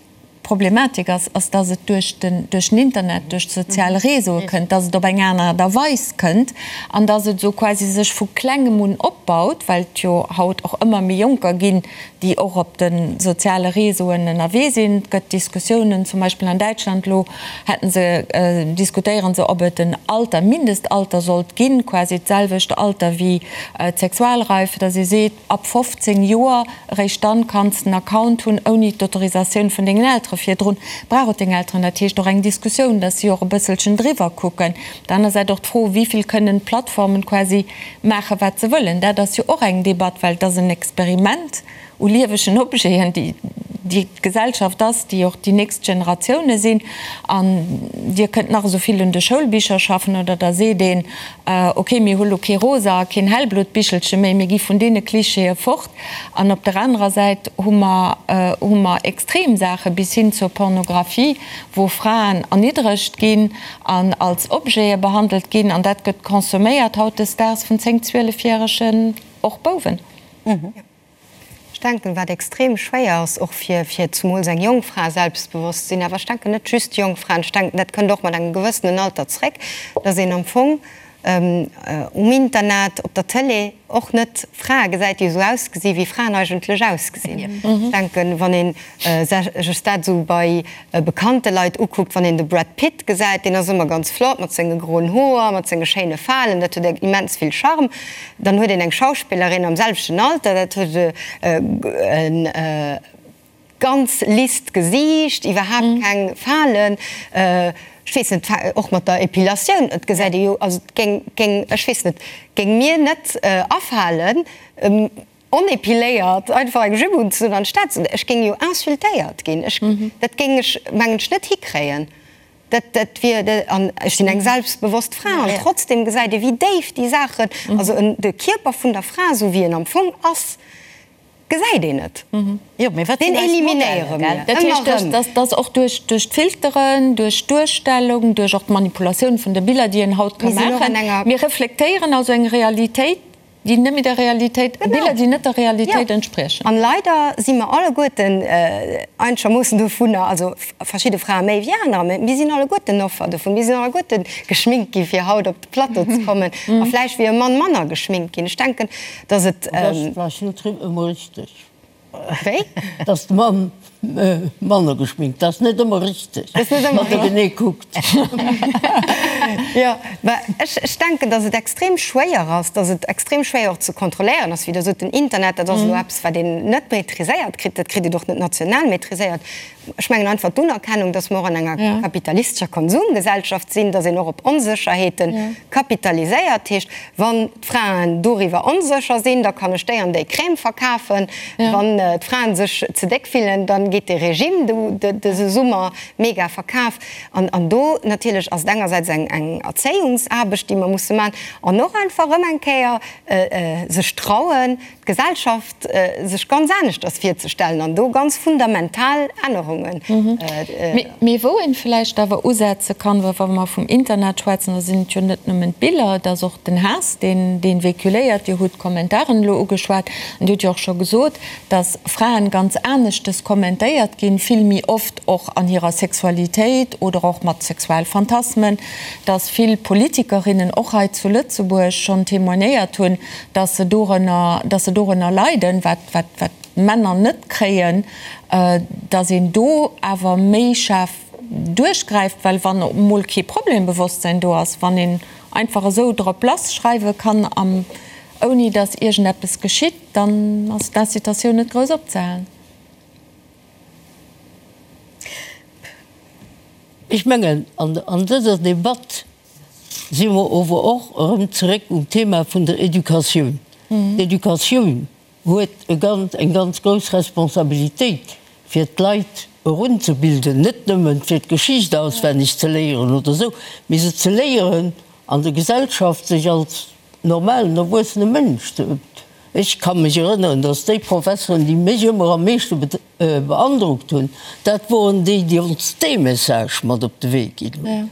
A: d'Problematik ass, ass, dass et duerch den, duerch den Internet, duerch d'sozial Réseaue kënnt, dass et op eng aner Aart a Weis kënnt an dass et esou quasi sech vu Klengem un opbaut, well et jo haut och ëmmer méi Jonker ginn, déi och op de soziale Réseauen ënnerwee sinn. Et gëtt Diskussiounen, zum Beispill an Däitschland elo hätte se, diskutéiere se, ob et en Alter, Mindestalter sollt ginn, quasi d'selwecht Alter wéi d'Sexualreife, dass ee seet, ab 15 Joer, eréischt dann kanns de en Account hunn, ouni d'Autorisatioun vun dengen Eltere. Virdrun brauch et deng Elteren. Dat heescht och eng Diskussioun, dass si och e bësselchen driwwer kucken. Op der aner Säit och d'Fro, wéi vill kënnen d'Plattformen quasi maachen, wat se wëllen. Dat ass jo och eng Debatt, well et ass en Experiment u liewegen Objeten, déi déi d'Gesellschaft ass, déi och déi nächst Generatioune sinn. An Dir kënnt nach esou vill un de Schoulbicher schaffen oder da seet een, ok, mir hu lo kee rosa a keen hellblot Bichelche méi, mir gi vun deene Klischeeë fort. An op der anerer Säit hu mer hu mer extrem Saache bis hin zur Pornographie, wou Fraen erniddregt ginn an als Objete behandelt ginn. An dat gëtt consomméiert hautdesdaags vun 10, 12 järegen och Bouwen.
B: Ech denken, wat extrem schwéier ass, och fir, fir zumools eng jonk Fra selbstbewosst ze sinn, awer ech denken net just jonk Fraen, ech denken, dat kënnt och mat engem gewëssenen Alter zréck, dass een am Fong um Internet, op der Tëlee och net Frae gesäit, déi esou ausgesi wéi Fraen eigentlech ausgesinn. Ech denken, wann ee sech dat esou bei bekannte Leit ukuckt, wann een de Brad Pitt gesäit, deen ass ëmmer ganz flott mat senge groen Hoer, mat senge schéine Falen, dat huet immens vill Charme. Dann huet een eng Schauspillerin am selwechten Alter, dat huet e ganz lisst Gesiicht, iwwerhaapt keng Falen, ech weess net, och mat der Epilatioun, et gesäit ee jo, also et géing, géing, ech weess net, géing mir net afalen, onepiléiert einfach eng Jupe unzedun an d'Stad ze, ech géing jo insultéiert ginn, ech, dat géing ech mengen ech net hikréien, dat, dat wier, an ech sinn eng selbstbewosst Fra an trotzdem gesäit ee wéi déif déi Saachen, also en, de Kierper vun der Fra esou wéi en am Fong ass, gesäit een net.
E: Jo, mee wat
B: Deen
E: sinn eis
B: eliminéiere
E: Modeller,
B: mir
E: gell?
A: Dat
B: ëmmer
A: heescht,
B: erëm.
A: dass, dass och duerch, duerch d'Filteren, duerch d'Duerstellung, duerch och d'Manipulatioun vun de Biller, déi een haut ka
B: Mir sinn och an
A: maachen,
B: enger.
A: mir reflektéieren also eng Realitéit, déi net méi der Realitéit, Biller, déi net der Realitéit entspriechen.
B: An leider si mer alleguerten einegermoossen dovunner, also verschidde Frae méi wéi anerer, mä mir sinn alleguerten Offer dovun. Mir sinn alleguerte geschminkt gi fir haut op de Plateau ze kommen a vläicht wier e Mann manner geschminkt ginn. Ech denken, datt et.
C: Dat ass vläicht net ëmmer richteg.
B: Wéi?
C: Dass de Mann manner geschminkt, dat ass net ëmmer richteg, wann der genee kuckt.
B: Jo, mä ech, ech denken, dass et extrem schwéier ass, dass et extrem schwéier och ze kontrolléieren ass. Wéi Der sot, den Internet, dat ass elo eppes, wat een net maîtriséiert kritt, dat kritt een och net national maîtriséiert. Ech mengen einfach d'Unerkennung, dass mer och an enger kapitalistescher Konsumgesellschaft sinn, dass een och op Onsécherheete kapitaliséiert. Heescht, wann d'Fraen doriwwer onsécher sinn, da kann ech déi an déi Crème verkafen. Wann d'Fraen sech ze déck fillen, da geet dee Regime dëse Summer mega verkaf. An do natierlech ass et engersäits eng Erzéiungsaarbecht, déi mer musse maachen, an och einfach erëm eng Kéier sech trauen, d'Gesellschaft sech ganz aneschters virzestellen an do ganz fundamental Ännerungen.
A: Mee wou een vläicht awer usetze kann, well wa mer vum Internet schwätzen, da sinn et jo net nëmmen d'Biller, et ass och den Haass, deen dee véhiculéiert. Dir hutt d'Kommentaren elo ugeschwat an Dir hutt jo och scho gesot, dass Fraen ganz aneschtes kommentéiert ginn, vill méi oft och an hirer Sexualitéit oder och mat Sexualphantasmen, dass vill Politikerinnen och hei zu Lëtzebuerg schonn témoignéiert hunn, dass se dorënner, dass se dorënner leiden, wat, wat, wat d'Männer net kréien, dass een do awer méi schaarf duerchgräift, well wann emol kee Problembewosstsein do ass, wann een einfach esou drop lass schreiwe kann, am, ouni dass iergendeppes geschitt, dann ass d'Incitatioun net grouss opzehalen.
C: Ech mengen, an, an dëser Debatt si mer ower och erëm zeréck um Thema vun der Educatioun. D'Educatioun huet e ganz, eng ganz grouss Responsabilitéit, fir d'Leit erunzebilden, net nëmmen fir d'Geschicht auswenneg ze léieren oder esou, mee se ze léieren, an der Gesellschaft sech als normalen, erwuessene Mënsch ze. Ech ka mech erënneren, dass déi Professeren, déi mech ëmmer am meeschte beandrockt hunn, dat woren déi, déi ons dee Message mat op de Wee ginn hunn.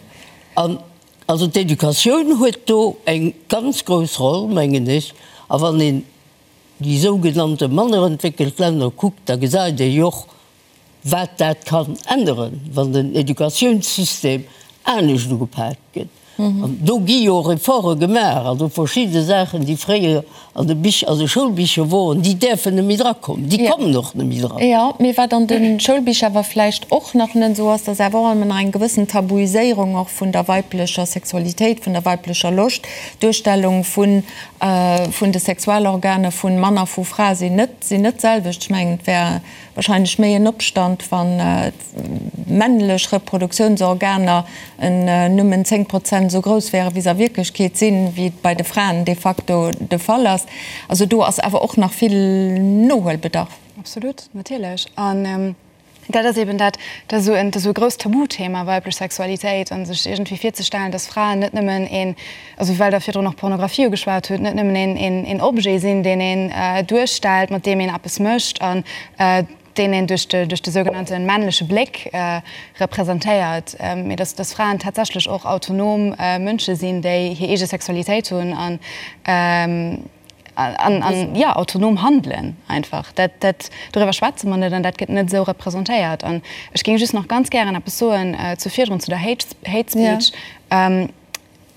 C: An also d'Educatioun huet do eng ganz grouss Roll, mengen ech. A wann een déi sougenannte manner entwéckelt Länner kuckt, da gesäit ee jo och. wat dat kann änneren, wann den Educatiounssystem anescht ugepak gëtt. An do gi jo Efforte gemaach, also verschidde Saachen, déi fréier an de Bich, an de Schoulbicher woren, déi däerfen net méi drakommen, déi kommen och net méi dran.
A: Jo, mee wat an de Schoulbicher awer vläicht och nach net esou ass, dass awer och ëmmer nach eng gewëssen Tabuiséierung och vun der weiblecher Sexualitéit, vun der weiblecher Loscht, d'Duerstellung vun, vun de Sexualorganer vun Mann a vu Fra sinn net, sinn net d'selwecht. Ech mengen, et wär wahrscheinlech méi en Opstand, wann d'männlech Reproduktiounsorganer nëmmen 10 Prozent esou grouss wären, wéi se a Wierklechkeet sinn, wéi et bei de Fraen de facto de Fall ass. Also do ass awer och nach vill Nohuelbedarf.
D: Absolut, natierlech. An dat ass eben dat, dat ass esou e grousst Tabuthema, weiblech Sexualitéit, a sech iergendwéi virzestellen, dass Fraen net nëmmen een, also well Der virdrun och Pornografie ugeschwat hutt, net nëmmen een Objet sinn, deen een duerstellt, mat deem een eppes mécht an deen een duerch de duerch de sougenannte männleche Bléck representéiert, mee dass dass Fraen tatsächlech och autonom Mënsche sinn, déi hir eege Sexualitéit hunn an an an jo autonom handelen einfach. Dat dat doriwwer schwätze mer net an dat gëtt net esou representéiert. An ech géing just nach ganz gären eppes soen zu virdrun, zu der Hate Hate Speech.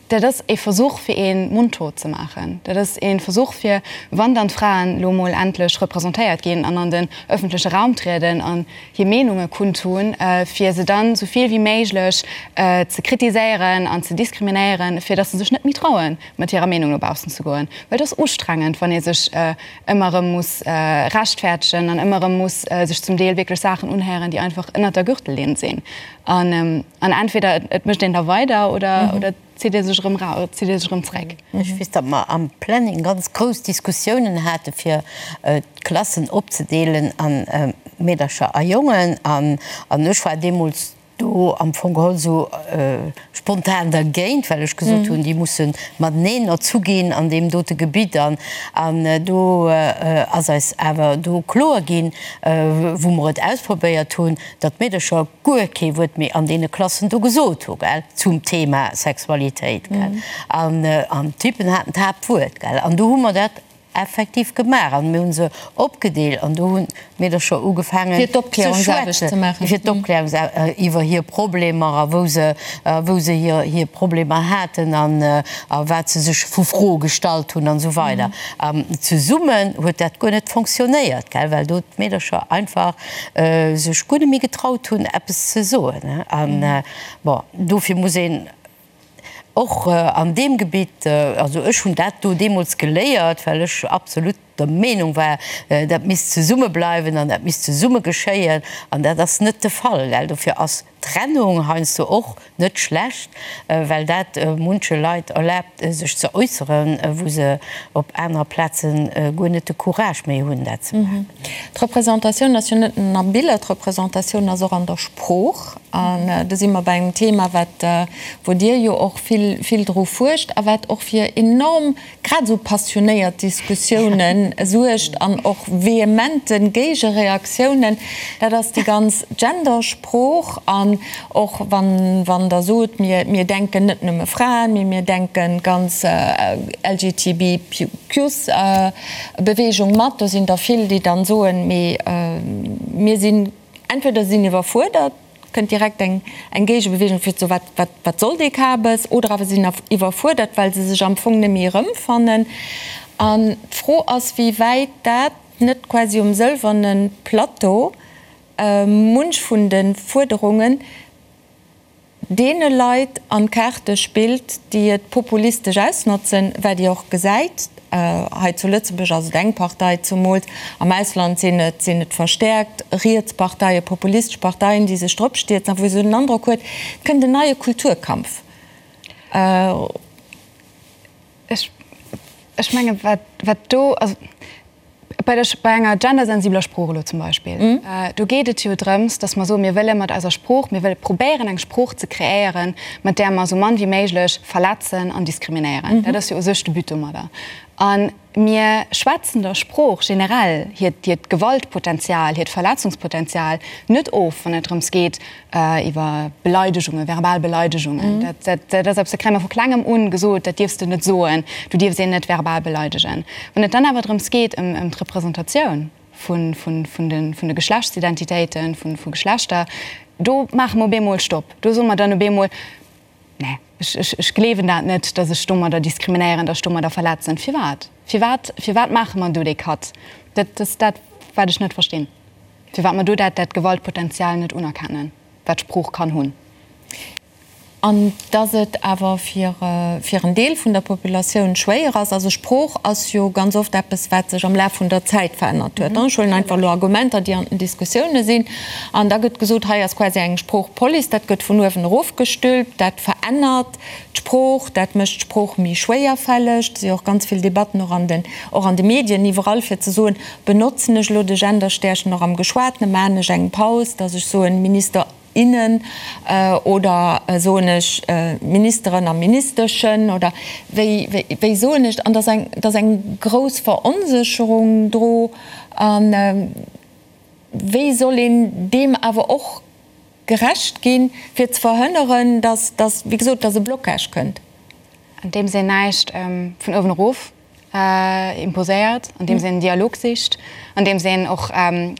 D: Dat ass ee Versuch, fir ee mondtot ze maachen. Dat ass ee Versuch, fir, wann dann d'Fraen elo emol endlech representéiert ginn an an den öffentleche Raum trieden an hir Meenunge kundtun, fir se dann esou vill wéi méiglech ze kritiséieren an ze diskriminéieren, fir datt se sech net méi trauen, mat hirer Meenung no baussen ze goen. Well et ass ustrengend, wann ee sech ëmmer erëm muss rechtfäertegen an ëmmer erëm muss sech zum Deel wierklech Saachen unhéieren, déi einfach ënnert der Gürtellinn sinn. An entweder et mécht een da weider oder et zitt ee sech erëm ra, et zitt ee sech erëm zréck.
E: Ech weess, datt mer am Planning ganz grouss Diskussiounen hate fir d'Klassen opzedeelen a Meedercher a Jongen. An ech war deemools do am Fong geholl esou spontan dergéint, well ech gesot hunn, déi musse mateneen erzu ginn an deem dote Gebitt. An do ass eis awer do kloer ginn, wou mer et ausprobéiert hunn, datt d'Meedercher guer kee Wuert méi an deene Klassen do gesot hu, gell, zum Thema Sexualitéit, gell. An, an d'Typen haten d'Haaptwuert, gell. An do hu mer dat effektiv gemaach an mir hu se opgedeelt an do hunn d'Meedercher ugefaangen
A: Fir d'Opklärungsaarbecht ze maachen.
E: Fir d'Opklärungsaarbecht iwwer hir Problemer a wou se, wou se hir, hir Problemer haten an, a wat se sech vu Froe gestallt hunn an esou weider. An zesummen huet dat guer net fonctionnéiert, gell, well do d'Meedercher einfach sech guer net méi getraut hunn eppes ze soen. An bon, dofir muss een och an deem Gebitt, also ech hunn dat do deemools geléiert, well ech absolut der Meenung war, dat misst zesumme bleiwen an dat misst zesumme geschéien, an dat ass net de Fall, well dofir ass Trennung heiansdo och net schlecht, well dat munche Leit erlaabt, sech ze äusseren, wou se op anerer Plaze guer net de Courage méi hunn, dat ze maachen.
A: D'Representatioun ass jo net nëmmen a Biller, d'Representatioun ass och an der Sprooch. An do si mer bei engem Thema, wat, wou Dir jo och vill, vill dru fuerscht a wat och fir enorm grad esou passionéiert Diskussiounen suergt an och vehemente Géigereaktiounen, dat ass déi ganz Gendersprooch. An och wann, wann Der sot, mir, mir denken net nëmme Fraen, mee mir denken d'ganz LGTBQs-Beweegung mat, do sinn der vill, déi dann soen, mee mir sinn, entweder sinn iwwerfuerdert, kënnt direkt eng eng Géigebeweegung fir ze soen, wat, wat, wat soll dee Kabes, oder awer sinn iwwerfuerdert, well se sech am Fong net méi erëmfannen. An d'Fro ass, wéi wäit dat net quasi um sëlwerne Plateau munch vun de Fuerderungen deene Leit an d'Kaarte spillt, déi et populistesch ausnotzen, wat Dir och gesäit. Hei zu Lëtzebuerg ass et eng Partei, zumools am Ausland sinn et sinn et verstäerkt riets Parteien, populistesch Parteien, déi sech drop stierzen a wou ee sou den Androck huet, et kënnt en neie Kulturkampf.
D: Ech, ech menge wat, wat do, also bei der, bei enger gendersensibeler Sprooch elo zum Beispill, do geet et jo drëms, datt mer soen, mir wëlle mat eiser Sprooch, mir wëlle probéieren eng Sprooch ze kreéieren, mat där mer esou mann wéi méiglech verletzen an diskriminéieren. Dat ass jo u sech de But domadder. A mir schwätzen der Sprooch generell hiert, hiert Gewaltpotenzial, hiert Verletzungspotenzial net of, wann et drëms geet, iwwer Beleidegungen, verbal Beleidegungen, dat, dat, dat ass eppes, dat kréie mer vu Klengem un gesot, dat dierfs de net soen, du dierfs een net verbal beleidegen. Wann et dann awer drëms geet, ëm, ëm d'Representatioun. vun de Geschlechtsidentitéiten, vu Geschlechter, do maache mer op eemol Stopp. Do soe mer dann op eemol, Nee, ech gleewen dat net, datt ech domadder diskriminéieren, datt ech domadder verletzen. Firwat? Firwat, firwat maache mer do dee Cut? Dat ass dat, wat ech net verstinn, firwat mer do dat Gewaltpotenzial net unerkennen, wat Sprooch kann hunn.
A: An dass et awer fir fir en Deel vun der Populatioun schwéier ass. Also Sprooch ass jo ganz oft eppes, wat sech am Laf vun der Zäit verännert huet. Ech huelen einfach elo Argumenter, déi an den Diskussioune sinn. An da gëtt gesot, hei ass quasi eng Sproochpolice, dat gëtt vun uewen erofgestülpt, dat verännert d'Sprooch, dat mécht d'Sprooch méi schwéierfälleg. Et si jo och ganz vill Debatten och an den och an de Medien iwwerall, fir ze soen, benotzen ech elo de Genderstärchen och am Geschwatene, maachen ech eng Paus, dass ech soen, Minister, innen oder soen ech Ministeren a Ministeschen oder wéi, wéi soen ech? An dass eng, dass eng grouss Veronsécherung dro. A wéi soll een deem awer och gerecht ginn, fir ze verhënneren, dass, dass, wéi gesot, dass e Blocage kënnt?
D: Andeems een näischt vun uewen erof imposéiert, andeems een Dialog sicht, andeems een och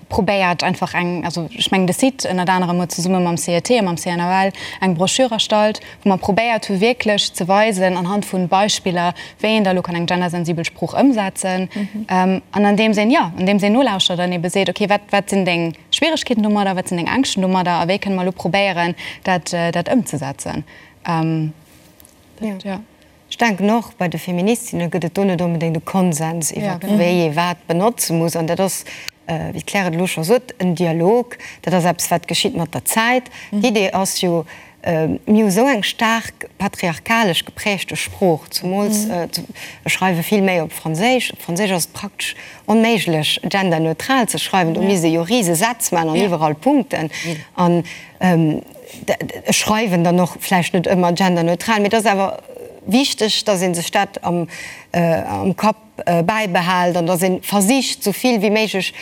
D: probéiert einfach eng, also ech mengen de Site ënnert anerem huet zesumme mam CET a mam CNAL eng Broschür erstallt, wou mer probéiert hu wierklech ze weisen anhand vu Beispiller, wéi een da elo kann eng gendersensibel Sprooch ëmsetzen. An andeems een, jo, andeems een nolauschtert an ebe seet, okay, wat, wat sinn deng Schwieregkeeten domadder, wat sinn deng Ängschten domadder a wéi kënne mer elo probéieren dat, dat ëmzesetzen. Dat, jo.
B: Ech denken och, bei de Feministinne gëtt et do net onbedéngt e Konsens iwwer wéi ee wat benotze muss. An dat ass, wéi d'Claire et elo scho sot, en Dialog. Dat ass eppes, wat geschitt mat der Zäit. D'Idee ass jo, mir hu sou eng staark patriarkalesch geprägte Sprooch, zumools ech schreiwe vill méi op Franséisch. Op Franséisch ass et praktesch onméiglech, genderneutral ze schreiwen. Do misst ee jo rise Sätz maachen an iwwerall Punkten. An Ech schreiwen dann och vläicht net ëmmer genderneutral, mee et ass awer wichteg, dass ee sech dat am Kapp bäibehält an dass ee versicht, esou vill wéi méiglech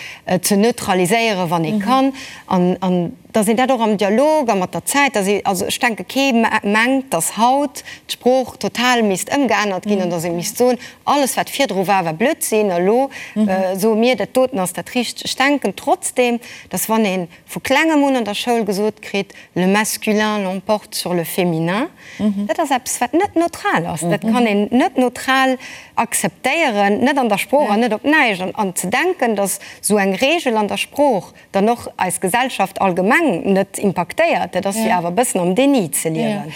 B: ze neutraliséieren, wann ee kann, an dass een dat och am Dialog a mat der Zäit, dass ee, also ech denke kee mengt, dass haut d'Sprooch total misst ëmgeännert ginn an dass ee misst soen, alles wat virdru war, war Blödsinn a lo soe mir, dat doten ass dat Richtegt. Ech denken trotzdem, dass wann ee vu klengem un an der Schoul gesot kritt, le masculin l'emporte sur le féminin, dat ass eppes, wat net neutral ass. Dat kann een net neutral akzeptéieren, net an der Sprooch an net op näischt. An ze denken, datt esou eng Regel an der Sprooch dann och eis Gesellschaft allgemeng net impaktéiert, dat ass jo awer e bëssen am Déni ze liewen.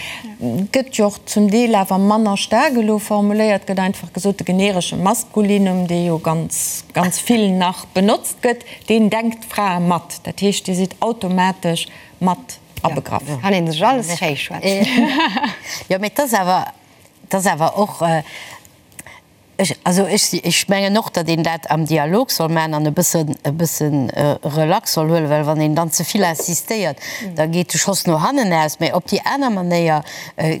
A: Gëtt jo och zum Deel awer manner staark elo formuléiert, gëtt einfach gesot, de generesche Maskulinum, dee jo ganz, ganz vill nach benotzt gëtt, Deen denkt d'Frae mat. Dat heescht, Dir sidd automatesch mat abegraff.
B: Jo, kann een sech alles schéi schwätzen.
E: Jo, mee et ass awer, et ass awer och, ech, also ech si, ech mengen och, datt een dat am Dialog soll maachen an e bëssen, e bëssen relax soll huelen, well wann een dann ze vill insistéiert, da geet de Schoss no hannen aus. Mee op déi aner Manéier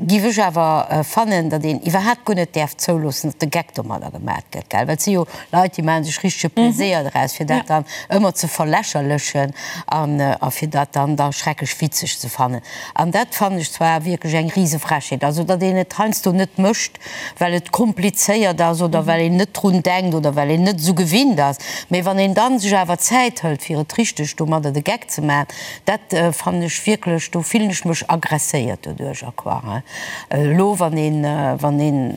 E: giff ech awer fannen, datt een iwwerhaapt guer net däerf zouloossen, datt de Geck domadder gemaat gëtt, gell, well et si jo Leit, déi maache sech richtege Pleséier draus, fir dat dann ëmmer ze verlächerlechen an a fir dat dann da schrecklech witzeg ze fannen. An dat fannen ech zwar wierklech eng Risefrechheet. Also, datt een et heiansdo net mécht, well et komplizéiert ass oder well een net drun denkt oder well een net esou gewinnt ass. Mee wann een dann sech awer Zäit hëlt, fir et richteg domadder de Geck ze maachen, dat fannen ech wierklech, do fillen ech mech agresséiert doduercher, quoi. Elo wann een, wann een,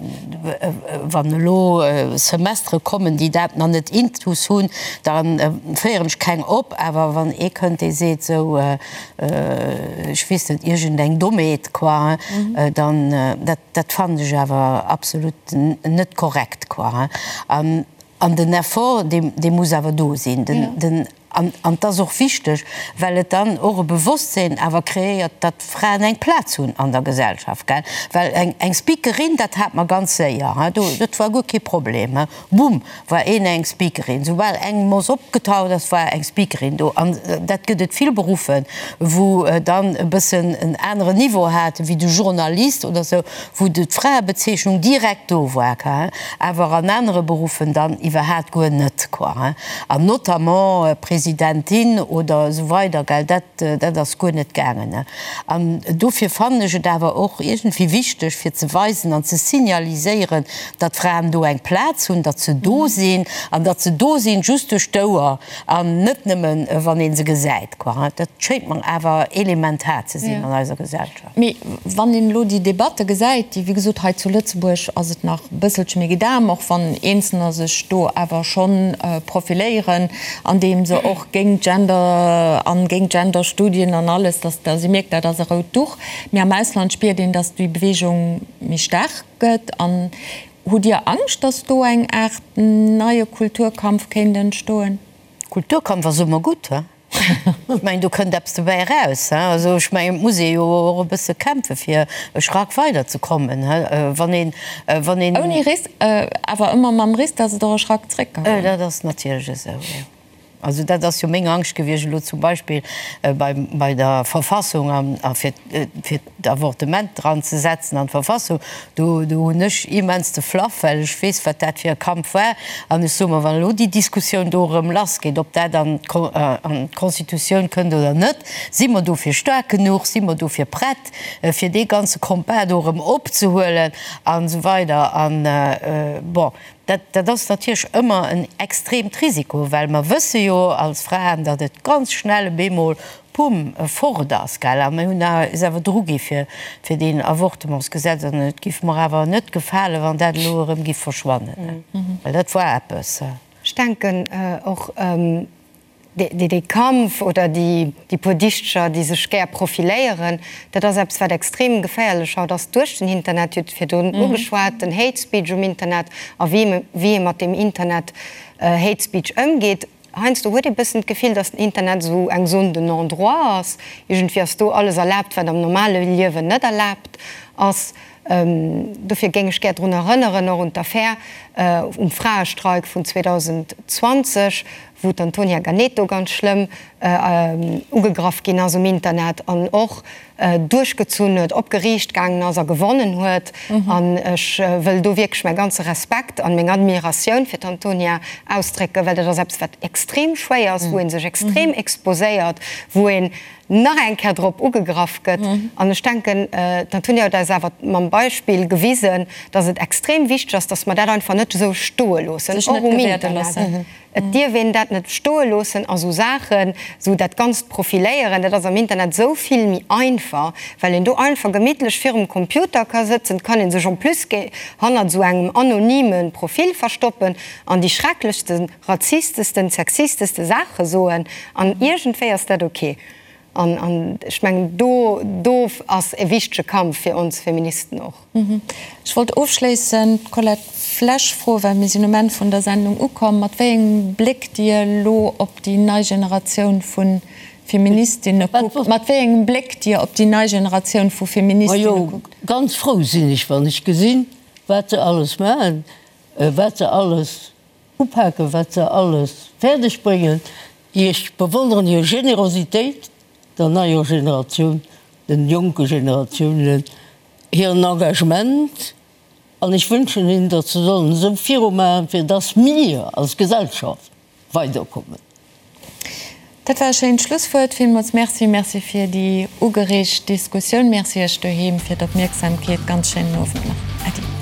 E: wann elo Semestere kommen, déi dat nach net intus hunn, da féieren ech keng op. Awer wann ee kënnt, dee seet esou, ech weess net, iergendeng Dommheet, quoi, dann, dat, dat fannen ech awer absolut net korrekt, quoi. An, an den Effort, dee, dee muss awer do sinn. Den, den. An et ass och wichteg, well et dann och e Bewosstsinn awer kreéiert, datt Fraen eng Plaz hunn an der Gesellschaft, gell. Well eng, eng Speakerin, dat hat mer ganz séier, hein, do, dat war guer kee Problem, hein, bumm, war een eng Speakerin. Soubal eng Moss opgetaucht ass, war eng Speakerin do. An dat gëtt et vill Beruffe, wou dann e bëssen en aneren Niveau haten, wéi de Journalist oder esou, wou d'Fraebezeechnung direkt do war, awer an anere Beruffen dann iwwerhaat guer net, quoi, hein, an notamment Presidenten. Presidentin oder esou weider, gell, dat, dat ass guer net gaangen. An dofir fannen ech et awer och iergendwéi wichteg, fir ze weisen an ze signaliséieren, datt Fraen do eng Plaz hunn, datt se do sinn an datt se do sinn just duerch d'Ouer an net nëmmen, wann ee se gesäit, quoi. Dat schéngt mer awer elementar ze sinn an eiser Gesellschaft.
A: Mee wann een elo déi Debatte gesäit, déi, wéi gesot, hei zu Lëtzebuerg ass et nach e bësselche méi gedam, och wann Eenzelner sech do awer schonn profiléieren, andeem se och géint Gender an géint Genderstudien an alles, dass dass ee mierkt, dat ass e rout Duch. Mee am Ausland spiert een, dass déi Beweegung méi staark gëtt. An hutt Dir Angscht, dass do eng Aart neie Kulturkampf kéint entstoen?
E: Kulturkampf ass ëmmer gutt, he? Ech mengen, do kënnt eppes dobäi eraus, he? Also ech mengen, et muss ee jo och e bësse kämpfe fir e Schrack weiderzekommen, he? Wann een, wann een.
A: Ouni Risk, awer ëmmer mam Risk, dass et och e Schrack zréck ka goen.
E: Dat ass natierlech esou, jo. Also dat ass jo meng Angscht gewiescht elo zum Beispill bei, bei der Verfassung an, a fir, fir d'Avortement dran ze setzen an d'Verfassung. Do, do hunn ech immens de Flaff, well ech weess, wat dat fir e Kampf war. An ech soe mer, wann elo déi Diskussioun do erëm lassgeet, ob dat an d'Constitutioun kënnt oder net, si mer dofir staark genuch, si mer dofir prett, fir dee ganze Combat do erëm opzehuelen an esou weider. An, bon, Dat, dat ass natierlech ëmmer en extreemt Risiko, well mer wësse jo als Fraen, datt et ganz schnell op eemol, pumm, fort ass, gell. A mir hunn eis awer drugi fir, fir deen Avortementsgesetz an et giff mer awer net gefalen, wann dat elo erëm giff verschwannen, well dat war eppes.
B: Ech denken och, Dee Kampf oder déi puer Dichteger, déi sech gär profiléieren, dat ass eppes, wat extrem geféierlech haut ass duerch den Internet. Dir hutt virdrun ugeschwat, den Hate Speech um Internet a wéi ee mat deem Internet Hate Speech ëmgeet. Heiansdo huet ee bëssen d'Gefill, datt den Internet esou eng Zone de non-droit ass. Iergendwéi ass do alles erlaabt, wat am normale Liewen net erlaabt ass. Dofir géing ech gär drun erënneren, och un d'Affär um Fraestreik vun 2020, wou d'Antonia Ganeto ganz schlëmm ugegraff ginn ass um Internet an och duerchgezunn huet, op Geriicht gaangen ass a gewonnen huet. An ech wëll do wierklech mäi ganze Respekt an meng Admiratioun fir d'Antonia ausdrécken, well dat ass eppes, wat extrem schwéier ass, wou ee sech extrem exposéiert, wou een nach eng Kéier drop ugegraff gëtt. An ech denken, d'Antonia huet eis awer mam Beispill gewisen, dass et extrem wichteg ass, dass mer dat einfach net esou stoe loossen, och um Internet. Et dierf een dat net stoe loossen a sou Saachen, sou dat ganzt Profiléieren, dat ass am Internet esou vill méi einfach, well een do einfach gemittlech virum Computer ka sëtzen, et kann ee sech en plus hannert esou engem anonyme Profil verstoppen an déi schrecklechste razistesten, sexisteste Saache soen an iergendwéi ass dat ok. An, an ech mengen, do, do ass e wichtege Kampf fir ons Feministen och.
A: Ech wollt ofschléissend d'Colette Flesch froen, well mir sinn um Enn vun der Sendung ukomm, mat wéi engem Bléck Dir elo op déi nei Generatioun vu Feministinne kuckt, mat wéi engem Bléck Dir op déi nei Generatioun vu Feministinne
C: Majo,
A: kuckt.
C: ganz frou sinn ech, wann ech gesinn, wat se alles maachen, wat se alles Upaken, wat se alles fäerdeg bréngen. Ech bewonneren hir Generositéit, der neier Generatioun, den jonke Generatiounen, hiren Engagement an ech wënschen hinnen, datt se sollen esou virumaachen, fir datt mir als Gesellschaft weiderkommen.
A: Dat war e schéint Schlusswuert. Villmools Merci. Merci fir déi ugereegt Diskussioun. Merci Iech doheem fir d'Opmierksamkeet. Ganz schéinen Owend nach. Äddi.